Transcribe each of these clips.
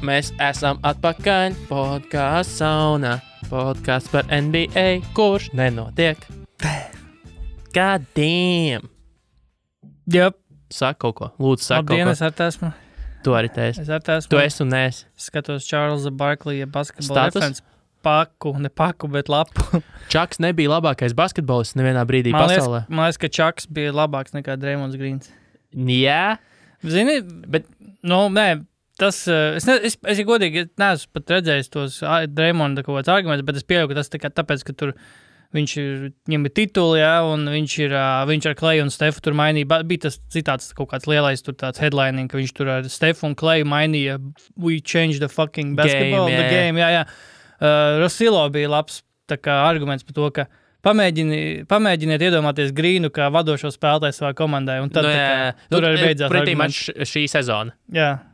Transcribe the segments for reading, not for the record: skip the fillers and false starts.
Mēs esam atpakaļ podkāsts saunā. Podkāsts par NBA, kurš nenotiek. God damn! Jep. Saka kaut ko. Lūdzu, saka Labdien, kaut es ar esmu. Tu arī teisi. Es ar esmu. Tu esi un neesi. Skatos Čārlza Barklija basketbola Status? referents paku, ne paku, bet lapu. Čaks nebija labākais basketbolists nevienā brīdī pasaulē. Man liekas, ka Čaks bija labāks nekā Draymonds Greens. Jā, Zini, bet nē, tas, es godīgi neesmu pat redzējis tos Draymonda kaut kāds arguments, bet es pieļauju, ka tas tāpēc, ka tur viņam ir tituli, jā, un viņš ar Kleju un Stefu tur mainīja. Bija tas citāts kaut kāds lielais tur tāds headlining, ka viņš tur ar Stefu un Kleju mainīja we changed the fucking basketball, the game, jā. Rosilo bija labs tā kā arguments par to, ka pamēģiniet iedomāties Grīnu kā vadošo spēlētāju savā komandai, un tad tur arī beidzās arguments. Šī sezona. Jā.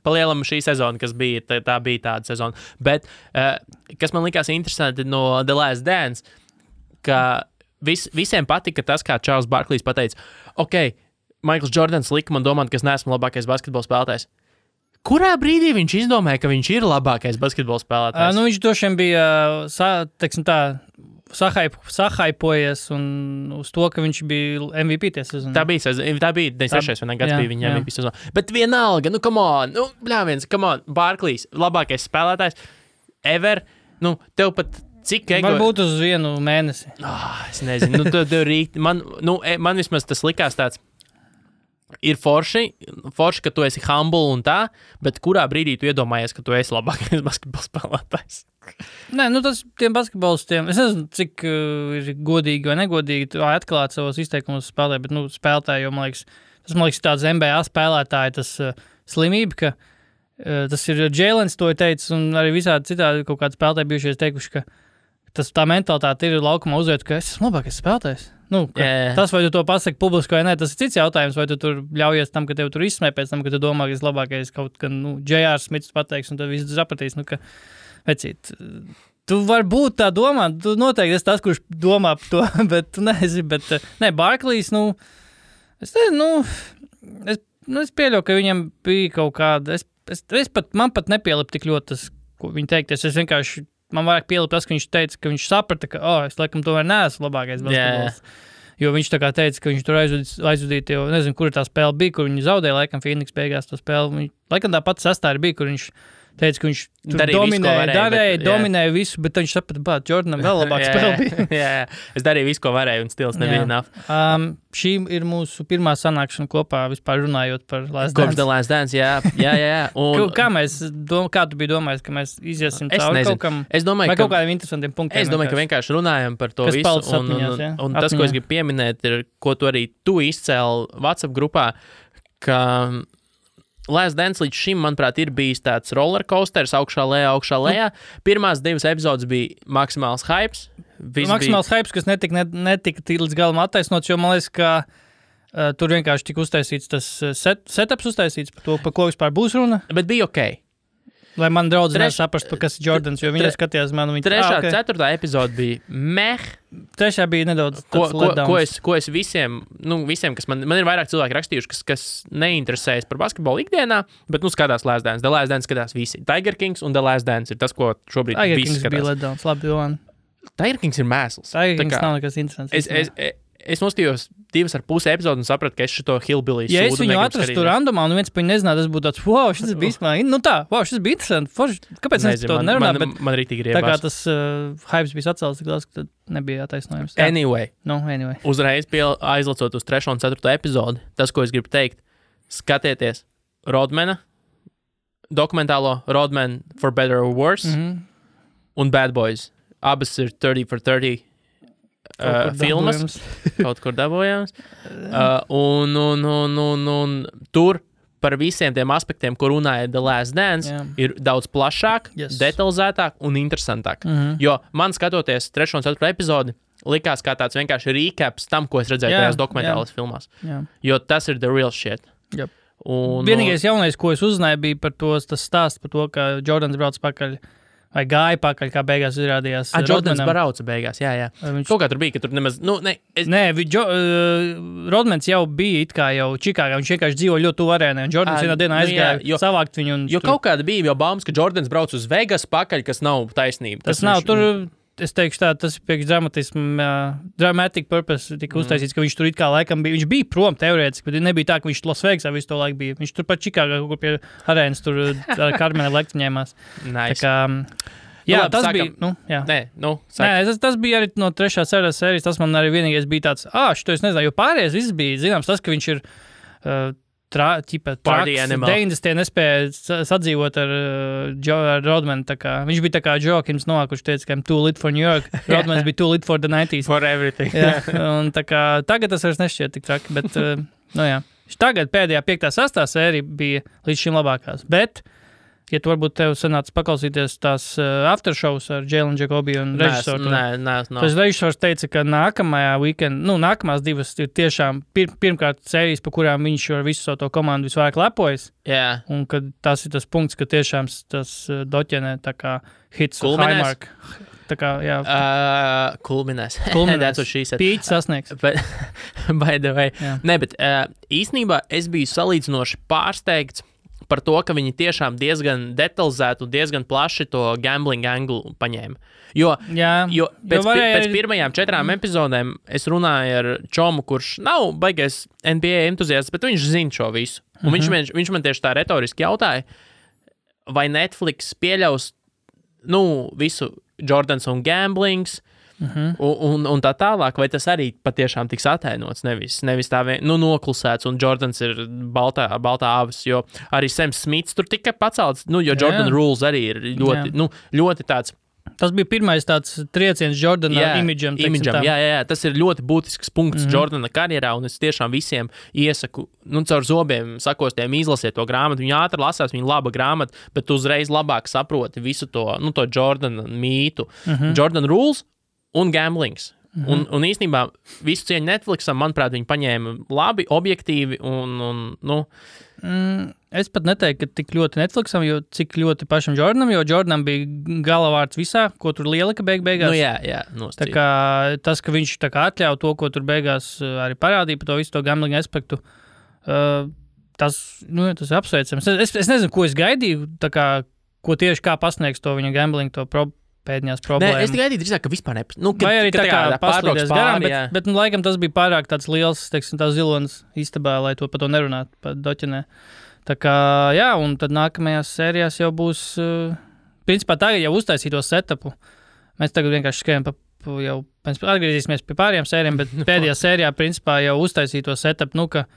Palielam šī sezona, kas bija, tā bija tāda sezona. Bet, kas man likās interesanti no The Last Dance, ka visiem patika tas, kā Čārls Barklijs pateica, ok, Maikls Jordans lika man domāt, ka es neesmu labākais basketbola spēlētājs. Kurā brīdī viņš izdomāja, ka viņš ir labākais basketbola spēlētājs? Viņš došiem bija, teiksim tā, sahaipojies un uz to, ka viņš bija MVP tie sezonu. Tā bija 96. gads bija viņa MVP sezona. Bet vienalga, come on, Barklijs, labākais spēlētājs ever, tev pat cik ego... Varbūt uz vienu mēnesi. Es nezinu, man vismaz tas likās tāds, ir forši, ka tu esi humble un tā, bet kurā brīdī tu iedomājies, ka tu esi labākais basketbola spēlētājs? Nē, tas tiem basketbolistiem, es nezinu, cik ir godīgi vai negodīgi atklāt savos izteikumos spēlē, bet, spēlētāji, jo, man liekas, tāds NBA spēlētāji, tas slimība, ka tas ir Jēlens to ir teicis, un arī visādi citādi kaut kādi spēlētāji bijušies teikuši, ka tā mentalitāte ir laukumā uzvērt, ka es esmu labākais spēlētājs. Tas, vai tu to pasaki publiski vai nē, tas ir cits jautājums, vai tu tur ļaujies tam, ka tev tur izsmē pēc tam, ka tu domā, ka esi labākais kaut kā, J.R. Smits pateiks, un tad viss sapratīs, ka, vecīt, tu vari būt tā domā, tu noteikti esi tas, kurš domā par to, bet tu nezini, Barklijs, es pieļauju, ka viņam bija kaut kāda, man pat nepielip tik ļoti tas, ko viņi teikties, es vienkārši, man vairāk pielip tas, ka viņš teica, ka viņš saprata, ka, es laikam tomēr neesmu labākais basketbols. Jo viņš tā kā teica, ka viņš tur aizvadīja, jo nezinu, kur tā spēle bija, kur viņi zaudēja, laikam Phoenix beigās to spēli. Laikam tā pati sastāra bija, kur viņš teica, ka viņš dominēja visu, bet viņš saprata, Jordanam vēl labāk spēle bija. Jā, es darīju visu, ko varēju, un stils nebija enough. Šī ir mūsu pirmā sanākšana kopā vispār runājot par Last Dance. Kopš The Last Dance, jā. Kā tu biji domājis, ka mēs iziesim cauri kaut kam? Vai kaut kādiem interesantiem punktiem? Es domāju, ka vienkārši runājam par to visu. Un tas, ko es gribu pieminēt, ir, ko tu arī izcēli WhatsApp grupā, ka Last Dance līdz šim, manuprāt, ir bijis tāds rollercoasters, augšā lejā. Pirmās 2 epizodes bija maksimāls hypes. Hypes, kas netika līdz galam attaisnots, jo man liekas, ka tur vienkārši tika uztaisīts tas setups uztaisīts par to, par ko vispār būs runa. Bet bija ok. Lai man draudz saprast, kas ir Jordans, jo viņi skatījās mani. 3. 4. epizode bija meh. 3. bija nedaudz ko es visiem, kas man ir vairāk cilvēki rakstījuši, kas neinteresējas par basketbolu ikdienā, bet, skatās Last Dance. The Last Dance skatās visi. Tiger Kings un The Last Dance ir tas, ko šobrīd visi skatās. Tiger Kings bija letdowns, labi, Jovan. Tiger Kings ir mēsls. Tiger Kings nav nekas interesants. Es nostījos 2,5 epizodu un sapratu, ka es šito hillbilly sūdu. Ja es viņu atrastu randomā un viens par viņu nezinātu, tas būtu tāds, šis bija īstenībā, šis bija interesanti. Kāpēc es to nerunāju? Man rītīgi riebās. Tā kā tas hypes bija atcēlis, tad nebija attaisnojums. Anyway. Uzreiz aizlacot uz 3. un 4. epizodi, tas, ko es gribu teikt, skatieties Rodmana, dokumentālo Rodman for Better or Worse un Bad Boys. Abas ir 30 for 30. Filmas, kaut kur dabojams. Un tur par visiem tiem aspektiem, ko runāja The Last Dance, ir daudz plašāk, detalizētāk un interesantāk. Jo man skatoties 3. un 4. epizodi, likās kā tāds vienkārši recaps tam, ko es redzēju tajās dokumentālās filmās. Jo tas ir the real shit. Vienīgais jaunais, ko es uzzināju, bija par tas stāsts par to, ka Jordans brauc pakaļ vai gāja pakaļ, kā beigās izrādījās. Jordans brauca beigās, jā. Kaut kā tur bija, ka tur nemaz, Nē, Rodmans jau bija it kā jau Čikāgā, viņš vienkārši dzīvo ļoti tuvu arēnai, un Jordans vienā dienā aizgāja savākt viņu. Jo kaut kāda bija jau baumas, ka Jordans brauc uz Vegas pakaļ, kas nav taisnība. Tas nav, tur, es teikšu tā, tas priekš dramatic purpose tika uztaisīts, ka viņš tur it kā laikam bija, viņš bija prom teorētiski, bet nebija tā, ka viņš Las Vegasā visu to laiku bija. Viņš tur pat Čikāgā, kur pie arēnas tur ar Karmena lektiņēmās. Nice. Tā kā, jā, labi, tas sākam. bija, Nē, tas bija arī no 3. sērijas, tas man arī vienīgais bija tāds, šito es nezinu, jo pārējais viss bija, zināms, tas, ka viņš ir traks, 90. nespēja sadzīvot ar Rodmanu, tā kā, viņš bija tā kā Joakims Noah, kurš teica, ka I'm too lit for New York, Rodmans bija too lit for the 90s. For everything. Jā, un tā kā, tagad tas vairs nešķiet tik traki, bet, jā. Tagad pēdējā 5. 6. sērija bija līdz šim labākās, bet ja tu varbūt tev sanāca paklausīties tās aftershows ar Jalen Jacobi un režisoru. Nē. Tas režisors teica, ka nākamās divas ir tiešām pirmkārt sērijas, pa kurām viņš ar visu savu to komandu visvairāk lepojas. Jā. Un ka tas ir tas punkts, ka tiešām tas doķenē tā kā hits Kulminēs? Highmark. Tā kā, jā. Kulminēs. Kulminēs. Pīķis sasniegs. By the way. Jā. Nē, bet īstenībā es biju salīdzinoši pārsteigts par to, ka viņi tiešām diezgan detalizēti un diezgan plaši to gambling anglu paņēma. Jo pēc pirmajām 4 epizodēm es runāju ar Čomu, kurš nav baigais NBA entuziasts, bet viņš zina šo visu. Un viņš man tieši tā retoriski jautāja, vai Netflix pieļaus visu Jordans un gamblings, un tā tālāk, vai tas arī patiešām tiks atainots, nevis tā noklusēts, un Jordans ir baltā avis, jo arī Sam Smits tur tika pacelts, jo Jordan Rules arī ir ļoti tāds. Tas bija pirmais tāds trieciens Jordana imidžam. Jā, tas ir ļoti būtisks punkts Jordana karjerā, un es tiešām visiem iesaku, caur zobiem sakostiem izlasiet to grāmatu. Viņa ātri lasās, viņa laba grāmata, bet tu uzreiz labāk saproti visu to Jordana mītu. Jordan Rules un gamblings. Un īstenībā visu cieņu Netflixam, manuprāt, viņi paņēma labi, objektīvi un Es pat neteiktu, ka tik ļoti Netflixam, jo cik ļoti pašam Jordanam, jo Jordanam bija galavārds visā, ko tur lielika beigās. Jā, tā kā tas, ka viņš tā kā atļauj to, ko tur beigās arī parādīja par to visu to gambling aspektu, tas ir apsveicams. Es nezinu, ko es gaidīju, tā kā, ko tieši kā pasniegs to viņa gambling, to pēdējās problēmas. Nē, es gaidīju drīzāk, ka vispār vai arī tā kā paslīdēs garām, bet laikam tas bija pārāk tāds liels, teiksim, tā zilonis istabā, lai to par to nerunātu, par doķenē. Tā kā, jā, un tad nākamajās sērijās jau būs, principā tagad jau uztaisīto setupu. Mēs tagad vienkārši skrienam atgriezīsimies pie pārējām sērijām, bet pēdējā sērijā, principā, jau uztaisīto setupu, ka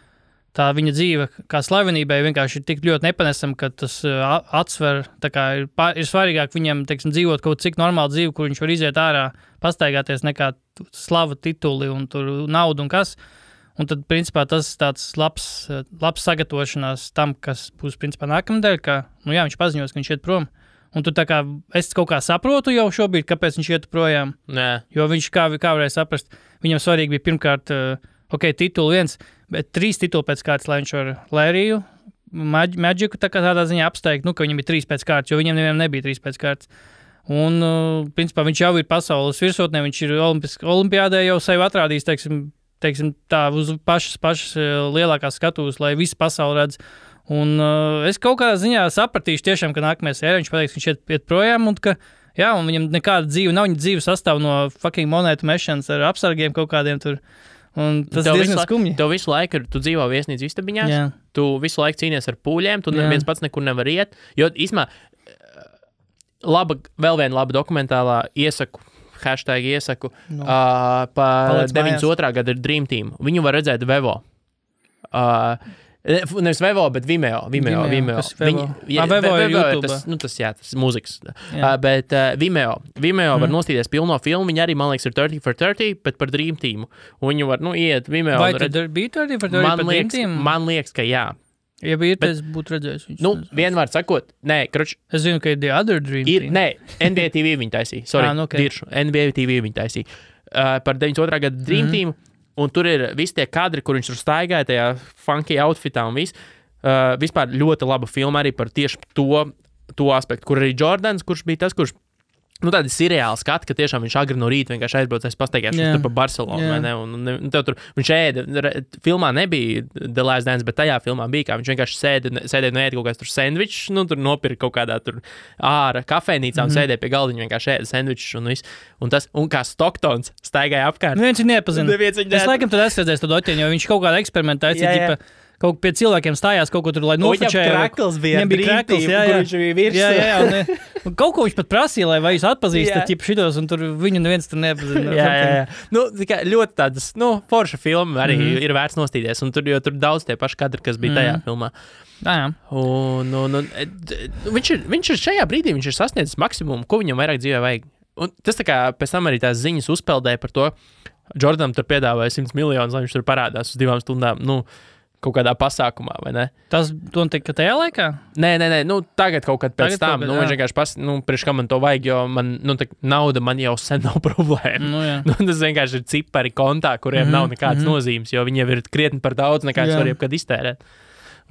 tā viņa dzīve kā slavenībai vienkārši ir tik ļoti nepanesama, ka tas atsver, tā kā ir svarīgāk viņam, teiksim, dzīvot kaut cik normālu dzīvi, kur viņš var iziet ārā, pastaigāties nekā slava tituli un tur naudu un kas. Un tad, principā, tas tāds labs sagatavošanās tam, kas būs, principā, nākamnedēļ, ka, viņš paziņos, ka viņš iet prom. Un tu tā kā, es kaut kā saprotu jau šobrīd, kāpēc viņš iet projām. Nē. Jo viņš, kā varēja saprast, viņam svarīgi bija pirmkārt, tituli 1, bet 3 tituli pēc kārtas, lai viņš ar Lēriju, Magiku tādā ziņā apsteigt, ka viņam ir 3 pēc kārtas, jo viņam nevienam nebija 3 pēc kārtas. Un, principā, viņš jau ir pasaules virsotnē, viņš ir olimpiādē jau sevi atrādījis, teiksim tā, uz pašas lielākās skatuves, lai visi pasauli redz. Un es kaut kādā ziņā sapratīšu tiešām, ka nākamajā sērijā viņš pateiks, ka viņš iet projām, un ka, un viņam nekāda dzīve nav, viņa dzīve sastāv no fucking monētu mešanas ar apsargiem kaut kādiem tur. Un tas diezgan skumji. Tev visu laiku, tu dzīvo viesnīcu istabiņās, tu visu laiku cīnies ar pūļiem, tu neviens pats nekur nevar iet, jo īsmā vēl viena laba dokumentālā iesaku par 92. gada ir Dream Team. Viņu var redzēt Vevo. Nevis Vevo, bet Vimeo. Vimeo ir YouTube. Tas mūzikas. Bet Vimeo var nostīties pilno filmu. Viņi arī, man liekas, ir 30 for 30, bet par Dream Teamu. Un viņi var, iet Vimeo. Vai tad bija 30 for 30 par Dream Teamu? Man liekas, ka jā. Ja bija, tad es būtu redzējis viņus. Vienvārds sakot, es zinu, ka ir The Other Dream Team. Nē, NBA TV viņi taisīja. Sorry, diršu. NBA TV viņi taisīja. Par 92. gada Dream Team. Un tur ir visi tie kadri, kur viņš tur staigāja tajā funky outfitā un viss. Vispār ļoti laba filma arī par tieši to aspektu, kur arī Jordans, kurš bija tas, kurš tādi seriāli skati, ka tiešām viņš agri no rīta vienkārši aizbraucais pastaigāšanas tur pa Barcelonu, vai ne? Un tev tur, viņš filmā nebija The Last Dance, bet tajā filmā bija, kā viņš vienkārši sēdēja un ēda kaut kāds tur sendvičs, tur nopirka kaut kādā tur ārā kafejnīcā un sēdēja pie galdiņa vienkārši ēda sendvičs un viss. Un kā Stocktons staigāja apkārt. Neviens viņu nepazina. Es laikam tad esmu redzējis to doķiņu, jo viņš kaut kādā eksperimentā aicīja, kaut pie cilvēkiem stājās kaut ko tur, lai nofočēja. Krakls bija Dreamteam, kur viņš bija virsū. Jā. Kaut ko viņš pat prasīja, lai vai jūs atpazīstat šitos, un tur viņu neviens tur nepazina. Jā. Ļoti tādas, forša filma arī ir vērts nostīties, un jo tur daudz tie paši kadri, kas bija tajā filmā. Jā. Un viņš ir šajā brīdī, viņš ir sasniedzis maksimumu, ko viņam vairāk dzīvē vajag. Un tas tā kā pēc tam arī tās ziņas uzpeldēja par to, Jordanam tur piedāvāja 100 miljonus, lai viņš tur parādās uz 2 stundām, kaut kādā pasākumā, vai ne? Tas notika tajā laikā? Nē, tagad kaut kad pēc tam. Viņš vienkārši priekš kā man to vajag, jo man, nauda man jau sen nav problēma. Tas vienkārši ir cipari kontā, kuriem nav nekādas nozīmes, jo viņi jau ir krietni par daudz, nekā es varu jebkad iztērēt.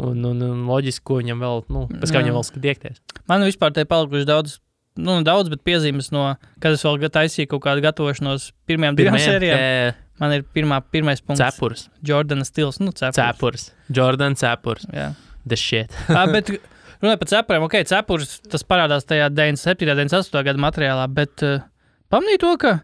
Un loģiski, ko viņam vēl, pēc kā viņam vēl skatiekties. Man vispār te palikuši daudz, bet piezīmes kad es vēl taisīju kaut kādu gatavošanos pirmajām 2 sērijām. Man ir pirmais punkts. Cepurs. Jordana stils. Cepurs. Jordan cepurs. Jā. The shit. Bet runāju par cepuriem. Ok, cepurs, tas parādās tajā 97. 98. gada materiālā, bet pamanīju to, ka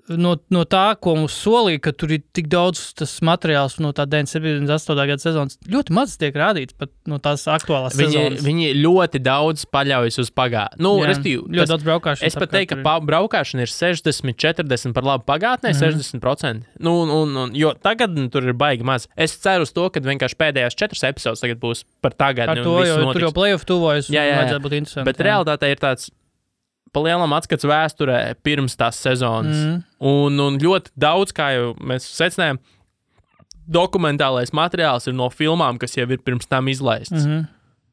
no tā, ko mums solīja, ka tur ir tik daudz tas materiāls no tā 97. 98. gada sezonas, ļoti maz tiek rādīts pat no tās aktuālās sezonas. Viņi ļoti daudz paļaujas uz pagātni. Ļoti daudz braukāšanas. Es pat teiktu, ka braukāšana ir 60-40 par labu pagātnē, 60%. Jo tagad tur ir baigi maz. Es ceru uz to, ka vienkārši pēdējās 4 epizodes tagad būs par tagadni. Ar to, jo tur jau playoff tuvojas, vajadzētu būt interesanti. Bet realitāte ir tāds palielam atskats vēsturē pirms tās sezonas. Un ļoti daudz, kā jau mēs secinājām, dokumentālais materiāls ir no filmām, kas jau ir pirms tam izlaists.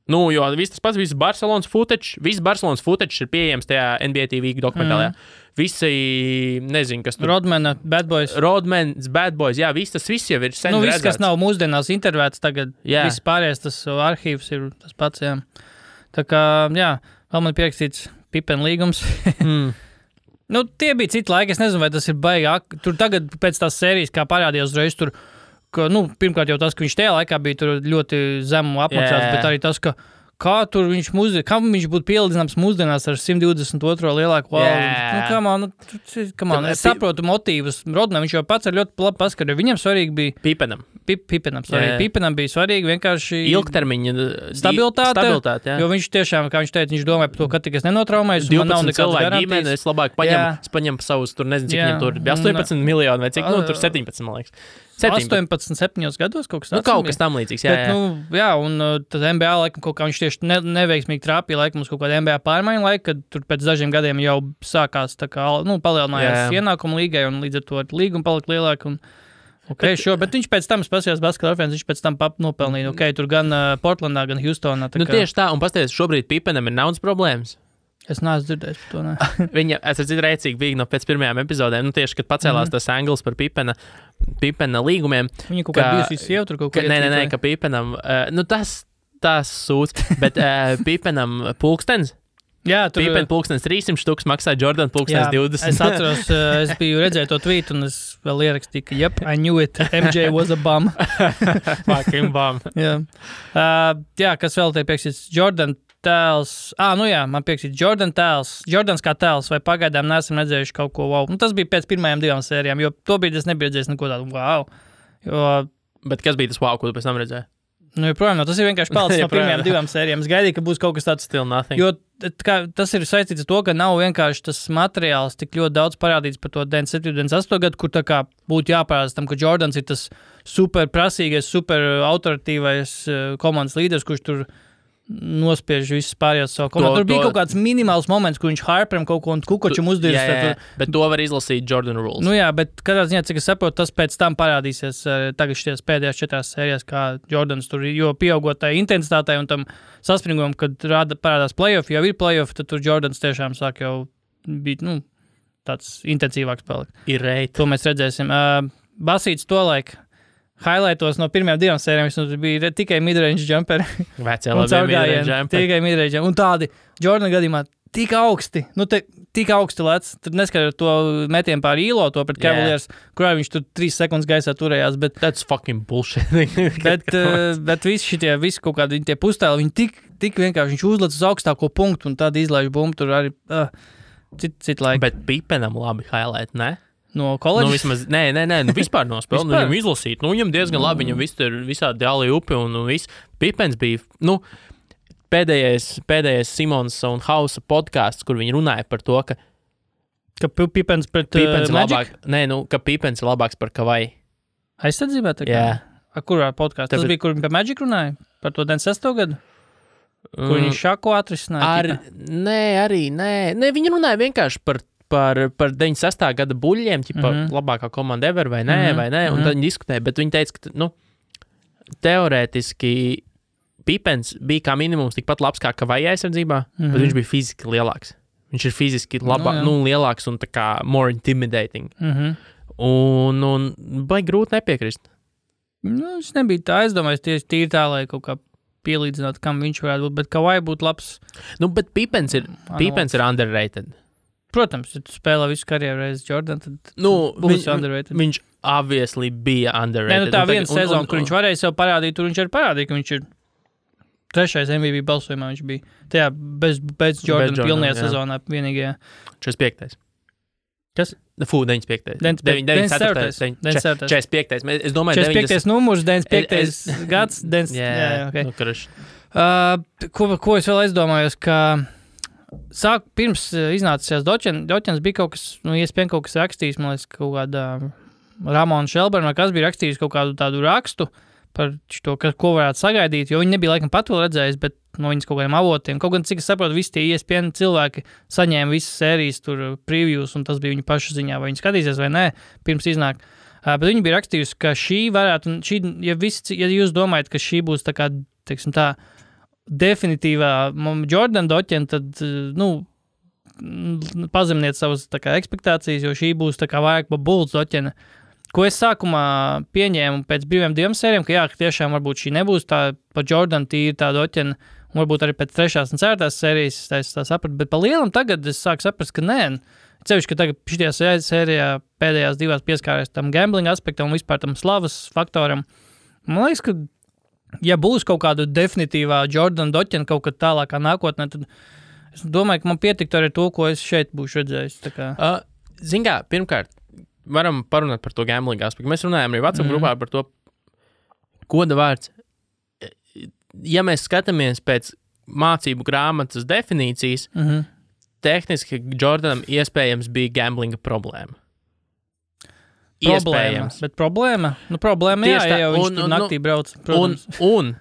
Jo viss tas pats, viss Barcelonas footage ir pieejams tajā NBA TV dokumentālajā. Visi, nezinu, kas tur... Rodmana, Bad Boys, jā, tas viss jau ir sen redzēts. Viss, kas nav mūsdienās intervēts tagad, viss pārējais, tas arhīvs ir tas pats, jā. Tā kā, jā, vēl man pierakstīts Pippen līgums. Tie bija citi laiki, es nezinu, vai tas ir baigāk. Tur tagad pēc tās sērijas, kā parādījās uzreiz tur, ka, pirmkārt jau tas, ka viņš tajā laikā bija tur ļoti zemu apmaksāts, bet arī tas, ka kā tur kam viņš būtu pielīdzināms mūsdienās ar 122. lielāku valdu. Es saprotu motīvus. Rodnam viņš jau pats ar ļoti labi paskatījis. Viņam svarīgi bija Pippenam bija svarīgi vienkārši ilgtermiņa stabilitāte, jo viņš tiešām, kā viņš teica, viņš domāja par to, ka tik es nenotraumēju, un man nav nekādas garantijas. Es labāk paņemu savus, tur nezinu, cik viņam tur bija 18 miljoni vai cik, tur 17, man liekas. 18, 7 gados kaut kas tāds. Kaut kas tam līdzīgs, jā. Un tad NBA laikam kaut kā viņš tieši neveiksmīgi trāpīja laikam uz kaut kādu NBA pārmaiņu laiku, kad tur pēc dažiem gadiem jau sākās tā kā, palielinājās ienākumu līgai un līdz ar to līguma palika lielāka. Bet viņš pēc tam spasījās basketbola referents, viņš pēc tam nopelnīja. Tur gan Portlandā, gan Houstonā. Tieši tā, un pasties, šobrīd Pippenam ir naudas problēmas. Es neesmu dzirdējis par to, ne. Viņa, es redzu, rēcīgi bija pēc pirmajām epizodēm, tieši, kad pacēlās tas anglis par Pippena līgumiem. Viņa kaut kā bijusi sieva tur kaut ko iecīt. Nē, ka Pippenam, tas sūds, bet Pippenam pulkstens. Jā, tur Pippen pulkstens 300 štuks maksā, Jordan pulkstens 20. Es atceros, es biju redzēju to tweetu, un es vēl ierakstīju, ka yep, I knew it, MJ was a bum. Fucking bum. Jā, kas vēl te piekstīts? Jordan tēls. Man piekstīts Jordan tēls. Jordans kā tēls, vai pagaidām neesam redzējuši kaut ko wow. Tas bija pēc pirmajām 2 sērijām, jo to brīdi es nebiju redzējis neko tādu wow. Bet kas bija tas wow, ko tu pēc tam redzēji? Joprojām, tas ir vienkārši palicis no pirmajām 2 sērijām. Es gaidīju, ka būs kaut kas tāds. Still nothing. Jo tas ir saistīts ar to, ka nav vienkārši tas materiāls tik ļoti daudz parādīts par to 97. 98. gadu, kur tā kā būtu jāparādās tam, ka Jordans ir tas super prasīgais, super autoritīvais komandas līderis, kurš tur nospiež visus pārējos savu komandu. Tur bija kaut kāds minimāls moments, kur viņš Harperam kaut ko un Kukočam uzdirst. Bet to var izlasīt Jordan Rules. Bet katrā ziņā, cik es saprotu, tas pēc tam parādīsies tagad šies pēdējās 4 sērijās, kā Jordans tur, jo pieaugot tai intensitātei un tam saspringumam, kad parādās playoff, jau ir playoff, tad tur Jordans tiešām sāk jau būt, tāds intensīvāks palikt. Ir reit. To mēs redzēsim. Basīts to laiku. Highlightos no pirmajām 2 sērijām viņš bija tikai midrange jumperi. Vecē labi midrange jumperi. Tikai midrange jumperi. Un tādi, Jordan gadījumā, tik augsti. Tik augsti lec. Tur neskatot to metienu pār īlo, to pret Cavaliers, kurā viņš tur 3 sekundes gaisā turējās. Bet, that's fucking bullshit. bet visi kaut kādi tie pustēli, viņi tik vienkārši, viņš uzlec uz augstāko punktu un tad izlaiž bumbu tur arī citu laiku. Bet Pipenam labi highlight, ne? No koledžas? Vismaz, nē, vispār no spēles. Viņam izlasīt, viņam diezgan labi, viņam viss tur visādi dāli upi un viss. Pipens bija, pēdējais Simons un Hausa podcasts, kur viņi runāja par to, ka Pipens pret Magic? Magic? Ka Pipens ir labāks par Kavai. Aizsardzībā? Jā. Kurā podkāstā? Tas bija, kur viņi par Magic runāja? Par to 96. gadu? Kur viņi šako atrisināja? Nē, viņi runāja vienkārši par 96. gada buļļiem, labākā komanda ever vai nē, un tad viņi diskutēja, bet viņi teica, ka, teorētiski Pipens bija kā minimums tikpat labs kā Kavai aizsardzībā, bet viņš bija fiziski lielāks. Viņš ir fiziski lielāks un tā kā more intimidating. Un baigi grūti nepiekrist. Es nebija tā, es domāju, tīri tā, lai kaut kā pielīdzināt, kam viņš varētu būt, bet Kavai būtu labs. Bet Pipens ir underrated. Protams, ja tu spēlē visu karjeru reiz Jordan, tad būs underrated. Viņš obviously bija underrated. Tā viena sezona, kur viņš varēja sev parādīt, tur viņš arī parādīja, ka viņš ir 3. MVP balsojumā viņš bija. Tajā bez Jordan pilnajā sezonā vienīgajā. 45. Kas? 95. 94. 45. Es domāju, 45. numurs, 95. gads. Okay. Ko es vēl aizdomājos, ka pirms iznācās Doķens bija kaut kas, iespējams kaut kas rakstījis, man liekas, kaut kādā Ramona Shelburne, vai kas bija rakstījis kaut kādu tādu rakstu, par to, ko varētu sagaidīt, jo viņi nebija laikam pat vēl redzējis, bet no viņas kaut kādiem avotiem. Kaut gan, cik es saprotu, visi tie ESPN cilvēki saņēma visas sērijas tur previews, un tas bija viņu pašu ziņā, vai viņi skatīsies vai nē, pirms iznāk. Bet viņi bija rakstījusi, ka šī varētu, ja jūs domājat, ka šī būs tā kā, teiksim tā, definitīvā Jordan Doķena, tad, pazemniet savas tā kā ekspektācijas, jo šī būs tā kā vairāk pa Bulls Doķena. Ko es sākumā pieņēmu pēc brīviem 2 sērijām, ka tiešām varbūt šī nebūs tā pa Jordan tīri tā Doķena, un varbūt arī pēc 3. un 4. sērijas es tā sapratu, bet pa lielam tagad es sāku saprast, ka nē, cevišķi, ka tagad šitajā sērijā pēdējās 2 pieskārēs tam gambling aspektam un vispār tam slavas faktoram. Man liekas, ka ja būs kaut kāda definitīvā Jordan Doķena kaut kad tālākā nākotnē, tad es domāju, ka man pietiktu arī to, ko es šeit būšu redzējis. Zin kā, pirmkārt, varam parunāt par to gambling aspektu. Mēs runājam arī WhatsApp grupā par to goda vārds. Ja mēs skatāmies pēc mācību grāmatas definīcijas, tehniski Jordanam iespējams bija gamblinga problēma. Iespējams. Bet problēma? Problēma, ja jau viņš tur naktī brauc. Un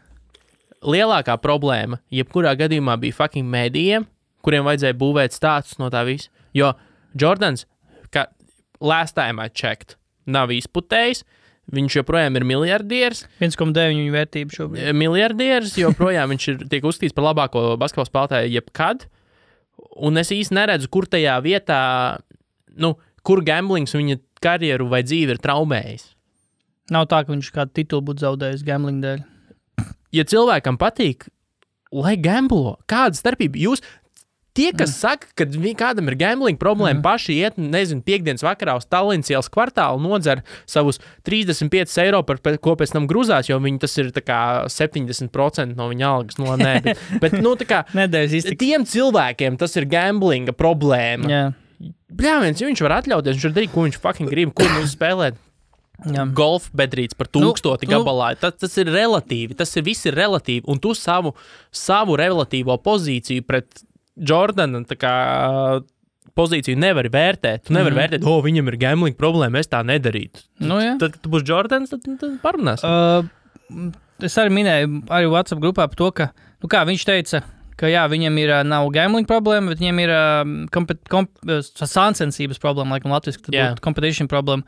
lielākā problēma, jebkurā gadījumā bija fucking mēdījiem, kuriem vajadzēja būvēt stāstus no tā visa. Jo Jordans, last time I checked, nav izputējis, viņš joprojām ir miljardieris. 1,9 viņa vērtība šobrīd. Miljardieris, joprojām viņš tiek uzskatīts par labāko basketbola spēlētāju jebkad, un es īsti neredzu, kur tajā vietā, kur gamblings viņa karjeru vai dzīvi ir traumējis. Nav tā, ka viņš kādu titulu būtu zaudējis gambling dēļ. Ja cilvēkam patīk, lai gamblo, kāda starpība? Jūs tie, kas saka, ka kādam ir gambling problēma, paši iet, piekdienas vakarā uz Tallinas ielas kvartālu, nodzer savus 35 eiro, ko pēc tam gruzās, jo viņi tas ir tā kā 70% no viņa algas. Bet tā kā tiem cilvēkiem tas ir gamblinga problēma. Jā. Bļāviens, ja viņš var atļauties, viņš var darīt, ko viņš fucking grib, ko viņš spēlēt. Golf bedrīts par 1000 gabalā. Tas ir relatīvi, viss ir relatīvi, un tu savu relatīvo pozīciju pret Jordana tā kā pozīciju nevari vērtēt. Tu nevari vērtēt, viņam ir gambling problēma, es tā nedarītu. Tad, kad tu būsi Jordans, tad parunāsim. Es arī minēju arī WhatsApp grupā par to, ka viņš teica, ka viņam nav gambling problēma, bet viņam ir sāncensības problēma, laikam latviski, tad būtu competition problēma.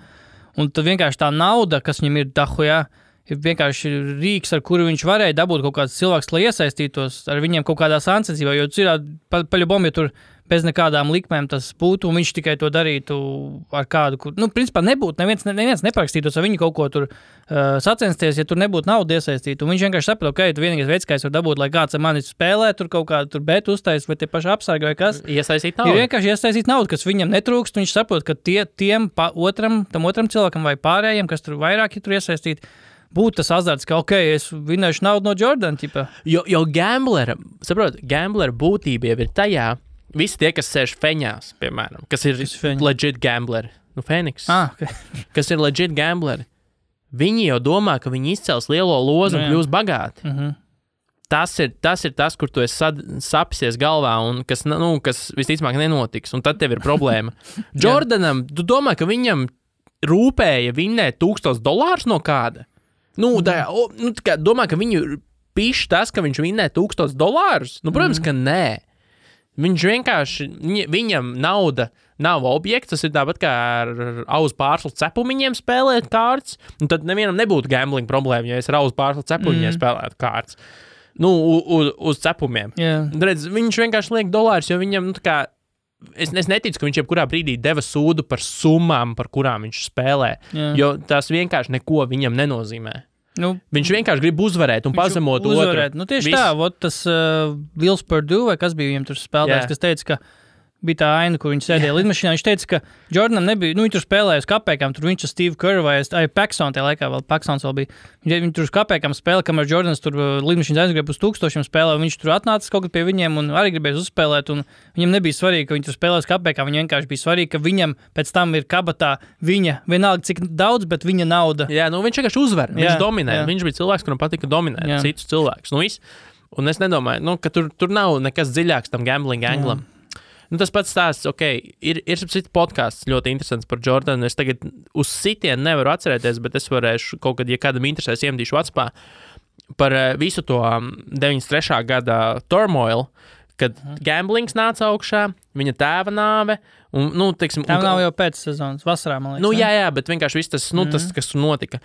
Un tad vienkārši tā nauda, kas viņam ir dahujā, ir vienkārši rīks, ar kuru viņš varēja dabūt kaut kāds cilvēks, lai iesaistītos ar viņiem kaut kādā sāncensībā, jo paļubom, ja tur bez nekādām likmēm tas būtu, un viņš tikai to darītu ar kādu, kur, principā nebūtu, neviens neparakstītos ar viņu kaut ko tur sacensties, ja tur nebūtu nauda iesaistīta, un viņš vienkārši saprot, tu vienīgais veids, kā es varu dabūt, lai kāds ar mani spēlē, tur kaut kādu tur bet uztais, vai tie paši apsargi vai kas. Iesaistīt naudu. Ir vienkārši iesaistīt naudu, kas viņam netrūkst, un viņš saprot, ka tam otram cilvēkam vai pārējiem, kas tur vairāk ir tur iesaistīti, būtu tas azarts, ka, es vinēšu naudu no Jordan, ķipa. Jo gamblera būtība jau ir tajā, visi tie, kas sēž feņās, piemēram, kas ir legit gambleri, Phoenix, okay. Kas ir legit gambleri, viņi jau domā, ka viņi izcels lielo lozu un kļūs bagāti. Tas ir tas, kur tu esi sapsies galvā un kas visticamāk nenotiks, un tad tev ir problēma. Jordanam, tu domā, ka viņam rūpēja vinnēt $1000 no kāda? Domā, ka viņu pišķi tas, ka viņš vinnē $1000? Protams, ka nē. Viņš vienkārši, viņam nauda nav objekts, tas ir tāpat kā ar auzu pārslu cepumiņiem spēlēt kārtas, un tad nevienam nebūtu gambling problēma, ja es ar auzu pārslu cepumiņiem spēlētu kārtas. Uz cepumiem. Yeah. Redz, viņš vienkārši liek dolārus, jo viņam, es neticu, ka viņš jebkurā brīdī deva sūdu par summām, par kurām viņš spēlē, jo tas vienkārši neko viņam nenozīmē. Viņš vienkārši grib uzvarēt un pazemot otru. Tieši tā, tas Vils Perdue, vai kas bija viņam tur spēlētājs, kas teica, ka bija tā aina, kur viņš sēdēja lidmašīnā. Viņš teica, ka Jordanam nebija, viņi tur spēlēja uz kapēkām, tur viņš ar Steve Kerr vai Paxson, tajā laikā vēl Paxsons vēl bija. Viņi tur uz kapēkām spēlēja, kamēr Jordans tur lidmašīnas aizgrib uz 1000 spēlē, un viņš tur atnāca kaut kad pie viņiem un arī gribēja uzspēlēt, un viņam nebija svarīgi, ka viņi tur spēlē uz kapēkām, viņam vienkārši bija svarīgi, ka viņam pēc tam ir kabatā viņa, vienalga cik daudz, bet viņa nauda. Jā, viņš vienkārši uzvar, viņš dominē, viņš bija cilvēks, kuram patika dominēt citus cilvēkus. Un es nedomāju, ka tur nav nekas dziļāks tam gambling anglam. Tas pats stāsts, ir podcasts ļoti interesants par Jordanu. Es tagad uz sitienu nevaru atcerēties, bet es varēšu kaut kad, ja kādam interesēs, iemdīšu WhatsAppā par visu to 93. gada turmoil, kad gamblings nāca augšā, viņa tēva nāve. Tā nav jau pēc sezonas, vasarā, man liekas. Jā, bet vienkārši viss tas, tas, kas tur notika.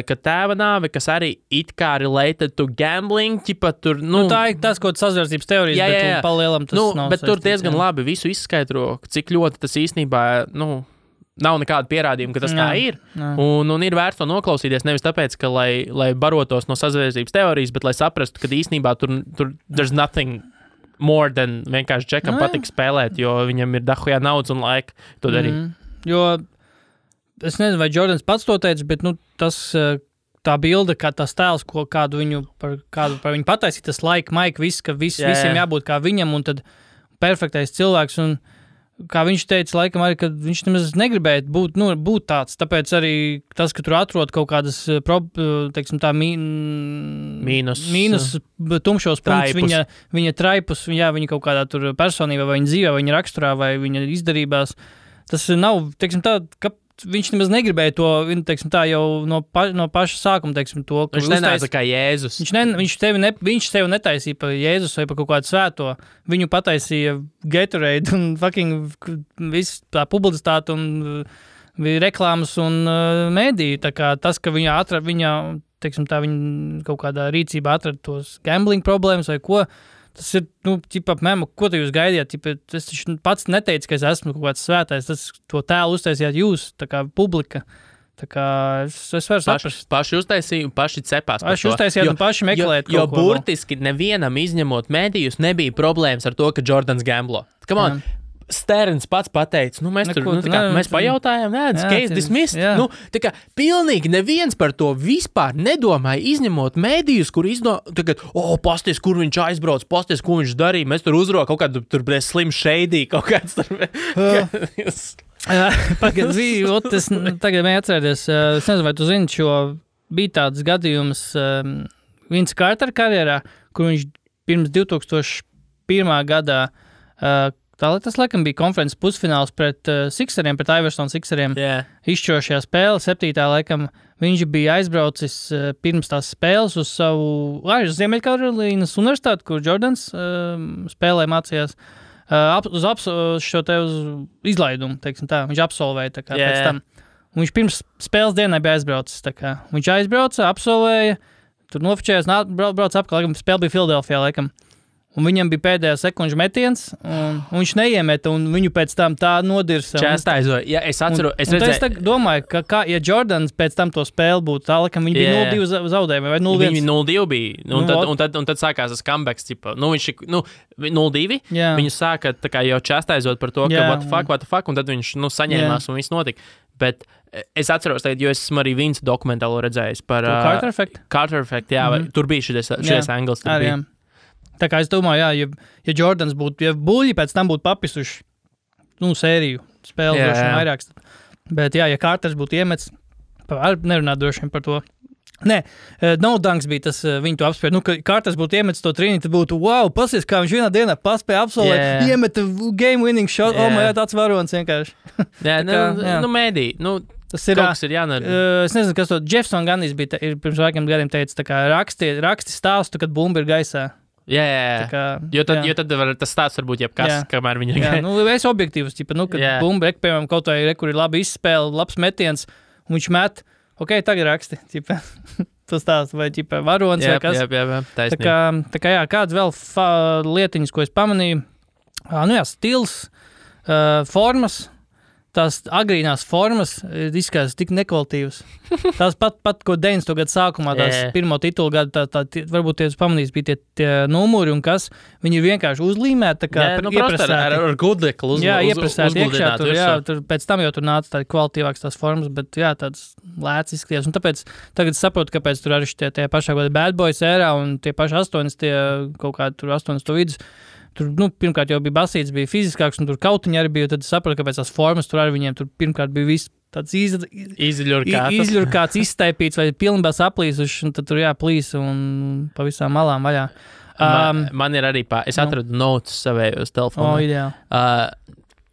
Kad tēva nāve, kas arī it kā related to gambling, ķipa tur, tā ir tas, ko sazvērstības teorijas, bet palielam tas nav bet tur diezgan labi visu izskaidro, cik ļoti tas īstenībā, nav nekāda pierādījuma, ka tas tā ir. Un ir vērts to noklausīties, nevis tāpēc, ka lai barotos no sazvērstības teorijas, bet lai saprastu, ka īstenībā tur there's nothing more than vienkārši Džekam patīk spēlēt, jo viņam ir dahujā naudas un laika to darīt. Jo es nezinu, vai Jordans pats to teica, bet tā bilde, kā tas tēls, kādu viņu par viņu pataisīt, tas laika, maika, viss, ka visiem jābūt kā viņam, un tad perfektais cilvēks, un kā viņš teica, laikam arī, ka viņš nemaz negribēja būt tāds, tāpēc arī tas, ka tur atrod kaut kādas, teiksim tā, mīnus tumšos punktus, viņa traipus, viņa kaut kādā tur personībā, vai viņa dzīvē, vai viņa raksturā, vai viņa izdarībās, tas nav, teiksim tā, ka viņš nemaz negribēja to, teiksim tā, jau no paša sākuma, teiksim to. Viņš nenāca kā Jēzus. Viņš tevi netaisīja par Jēzus vai par kaut kādu svēto. Viņu pataisīja Gatorade un fucking viss tā publicitāte un reklāmas un mēdīja. Tā kā tas, ka viņa teiksim tā, viņa kaut kādā rīcībā atrada tos gambling problēmas vai ko, tas ir, ko te jūs gaidījāt? Es pats neteicu, ka es esmu kaut kāds svētais. To tēlu uztaisījāt jūs, tā kā publika. Tā kā es varu saprast. Paši uztaisīju, paši cepās par to. Paši uztaisījāt un paši meklēt jo burtiski nevienam izņemot mēdījus nebija problēmas ar to, ka Jordans gamblo. Come on. Sterns pats pateica, mēs pajautājām, case dismissed. Tā kā pilnīgi neviens par to vispār nedomāja, izņemot mēdījus, kur tagad, pasties, kur viņš aizbrauc, pasties, ko viņš darīja, mēs tur uzrok kaut kādu tur slim shady, kaut kāds tur. Es tagad mēju atcerēties, es nezinu, vai tu zini, jo bija tāds gadījums Vince Carter karjerā, kur viņš pirms 2001. gadā tas, laikam, bija konferences pusfināls pret Sixeriem, pret Iverson Sixeriem. Izšķirošajā spēle, 7. laikam, viņš bija aizbraucis pirms tās spēles uz savu Ziemeļkarolīnas universitāti, kur Jordans spēlē mācījās, uz izlaidumu, teiksim tā. Viņš absolvēja tā kā pēc tam. Un viņš pirms spēles dienai bija aizbraucis. Tā kā. Viņš aizbrauca, absolvēja, tur nofočējās, brauc apkārt, laikam, spēle bija Filadelfijā, laikam. un viņam bija pēdējā sekundžu metiens, un viņš neiemeta, un viņu pēc tam tā nodirsa. Čestaizoja. Ja, es atceru, es redzēju. Es domāju, ka, ja Jordans pēc tam to spēli būtu tālāk, ka viņi bija 0-2 zaudējumi, vai 0-1. Viņi 0-2 bija, un tad sākās tas comebacks, tipa, 0-2, viņi sāka tā kā jau čestaizot par to, ka what the fuck, un tad viņš, saņēmās, un viss notika. Bet es atceros tagad, jo es esmu arī Vince dokumentālo redzējis par Carter Effect. Carter Effect, tur bija šis angles. Tā kā es domāju, ja Jordans būtu, ja buļļi pēc tam būtu papisuši, sēriju spēli droši vien vairāks. Bet ja Carters būtu iemets, nerunāt droši vien par to. Nē, No Dunks bija tas, viņi to apspēja. Ka Carters būtu iemetis to trīni, tad būtu, wow, pasies, kā viņš vienā dienā paspēja absolvēt, iemeta game winning shot, tāds varonis vienkārši. Mēdī, tas ir kaut kas ir jānara. Es nezinu, kas to, Jefferson Ganis bija, pirms vairākiem gadiem teica, tā kā raksti stāstu, kad bumba ir gaisā. Jo tad tas stāsts var būt jebkas, kamēr viņi ir gaisā. Es objektīvs, kad bumba, piemēram, kaut vai, kur ir labi izspēle, labs metiens, un viņš met, tagad raksti, tas tās, vai varonis, vai kas. Taisnība. Tā kā kāds vēl lietiņas, ko es pamanīju, stils, formas, tās agrīnās formas izskatās tik nekvalitīvas. Tās pat ko 90. gadu sākumā, tās pirmo titulu gadu, varbūt tie pamanīs, bija tie numuri un kas, viņi ir vienkārši uzlīmēti, tā kā iepresēti. Ar gudeklu iepresēti iekšā, tur pēc tam jau tur nāca tādi kvalitīvāks tās formas, bet tāds lēts izskatījās. Un tāpēc tagad saprotu, kāpēc tur arī tie pašā gada Bad Boys ērā un tie paši 80, kaut kādi tur 80 vidus. Tur, pirmkārt jau bija basīts, bija fiziskāks, un tur kautiņi arī bija, tad sapratu, kāpēc tās formas tur arī viņiem tur pirmkārt bija viss tāds izļurkāts, izstaipīts vai pilnībā saplīsuši, un tad tur plīs un pa visām malām vaļā. Man ir arī es atradu notes savējos telefonā. Ideāli.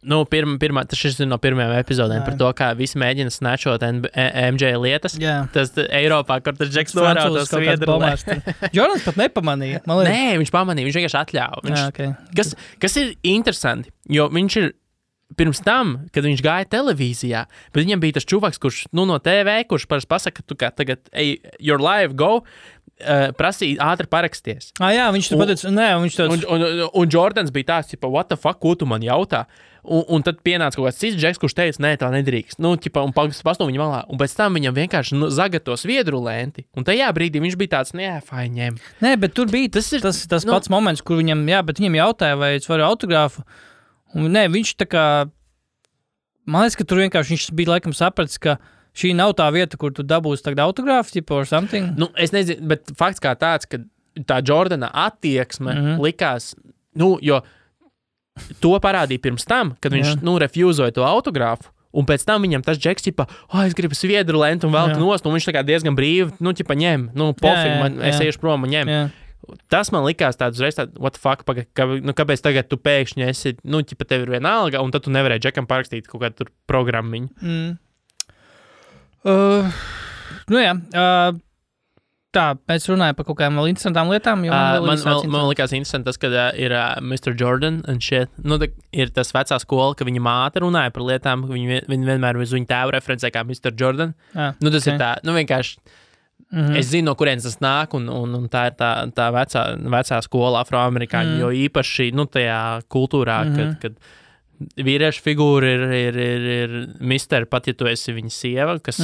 Šis ir no pirmajām epizodēm par to, kā visi mēģina snatchot MJ lietas. Tas Eiropā, kur tas Džeks norāda to sviedru. Jordans pat nepamanīja. Nē, viņš pamanīja, viņš vienkārši atļāva. Kas ir interesanti, jo viņš ir pirms tam, kad viņš gāja televīzijā, bet viņam bija tas čuvaks, kurš no TV, kurš parasti pasaka, tu kā tagad, your live, go, prasīja ātri paraksties. Viņš tur pateica, un Jordans bija tāds, what the fuck, ko tu man jautā? Un tad pienāca kaut kāds cits Džeks, kurš teica, nē, tā nedrīkst. Un pastāv viņa malā. Un pēc tam viņam vienkārši zagato sviedru lenti. Un tajā brīdī viņš bija tāds, ņem. Nē, bet tur bija tas pats moments, kur viņam, bet viņam jautāja, vai es varu autogrāfu. Un nē, viņš tā kā, man liekas, ka tur vienkārši viņš bija laikam sapratis, ka šī nav tā vieta, kur tu dabūsi tagad autogrāfu, or something. Es nezinu, bet fakts kā tāds, ka tā Jordana attieksme likās, jo to parādīja pirms tam, kad viņš, refūzoja to autogrāfu, un pēc tam viņam tas Džeks, es gribu sviedru lentu un velku nost, un viņš tā kā diezgan brīvi, ņem, pofīgi, es iešu prom un ņem. Tas man likās tāds uzreiz tāds, what the fuck, kāpēc tagad tu pēkšņi esi, tev ir vienalga, un tad tu nevarēji Džekam parakstīt kaut kādu tur programmiņu. Tā, mēs runājam par kaut kādām vēl interesantām lietām. Man likās interesanti tas, ka ir Mr. Jordan un shit. Ir tas vecā skola, ka viņa māte runāja par lietām, viņa vienmēr uz viņu tēvu referencē kā Mr. Jordan. Tas ir tā, vienkārši, es zinu, no kurienes tas nāk, un tā ir tā vecā skola afroamerikāņu, jo īpaši, tajā kultūrā, kad vīriešu figūra ir mister, pat ja tu esi viņa sieva, kas,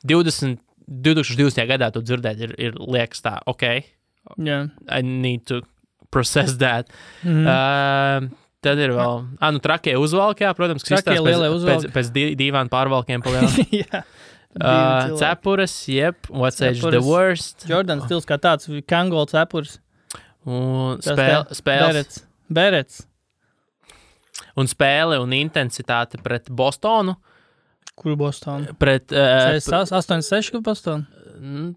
2020. gadā to dzirdēt ir liekas tā, I need to process that. Tad ir vēl, trakie uzvalki, protams, pēc dīvānu pārvalkiem palielā. Cepures, what's age the worst. Jordan stils kā tāds, Kangol cepures. Un spēles. Berets. Un spēle un intensitāte pret Bostonu. Kuru Bostonu? Pret 86 Bostonu?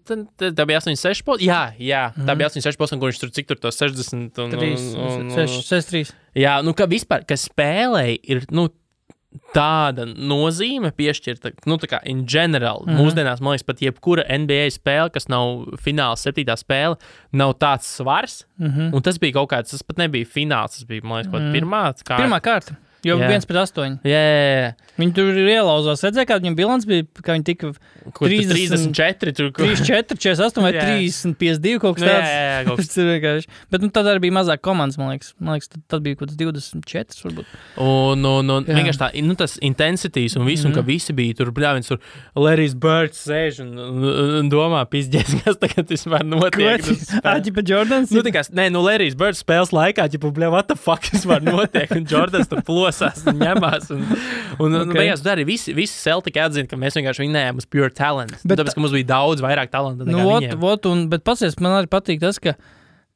Tā bija 86 Bostonu? Jā, tā bija 86 Bostonu, kur viņš tur cik tur to 60 un 63. Jā, ka vispār, ka spēlei ir, tāda nozīme piešķirta, tā kā in general, mūsdienās, man liekas, pat jebkura NBA spēle, kas nav fināls 7. spēle, nav tāds svars, un tas bija kaut kāds, tas pat nebija fināls, tas bija, man liekas, kaut pirmā kārta. Pirmā kārta. Jo 1-8. Jā. Viņi tur ielauzās. Redzēja, kāda viņam bilants bija, kā viņi tika 34, tur 34, 48 vai 30, 52 kaut kas tāds. Jā, kaut kas. Tas ir vienkārši. Bet tad arī bija mazāk komandas, man liekas tad bija kaut kas 24 varbūt. Un vienkārši tā, tas intensities un visu, un ka visi bija tur, bļāviens, tur Larry's Birds sēž un domā, pizdies, kas tagad vispār notiek. Āķipa Jordans? Larry's Birds spēles laikā, what the fuck vispār notiek, un Jordans tur plosās un ņemās, un beigās arī visi Celtic atzina, ka mēs vienkārši vinējām uz pure talent, tāpēc, ka mums bija daudz vairāk talanta nekā viņiem. Bet pasies, man arī patīk tas, ka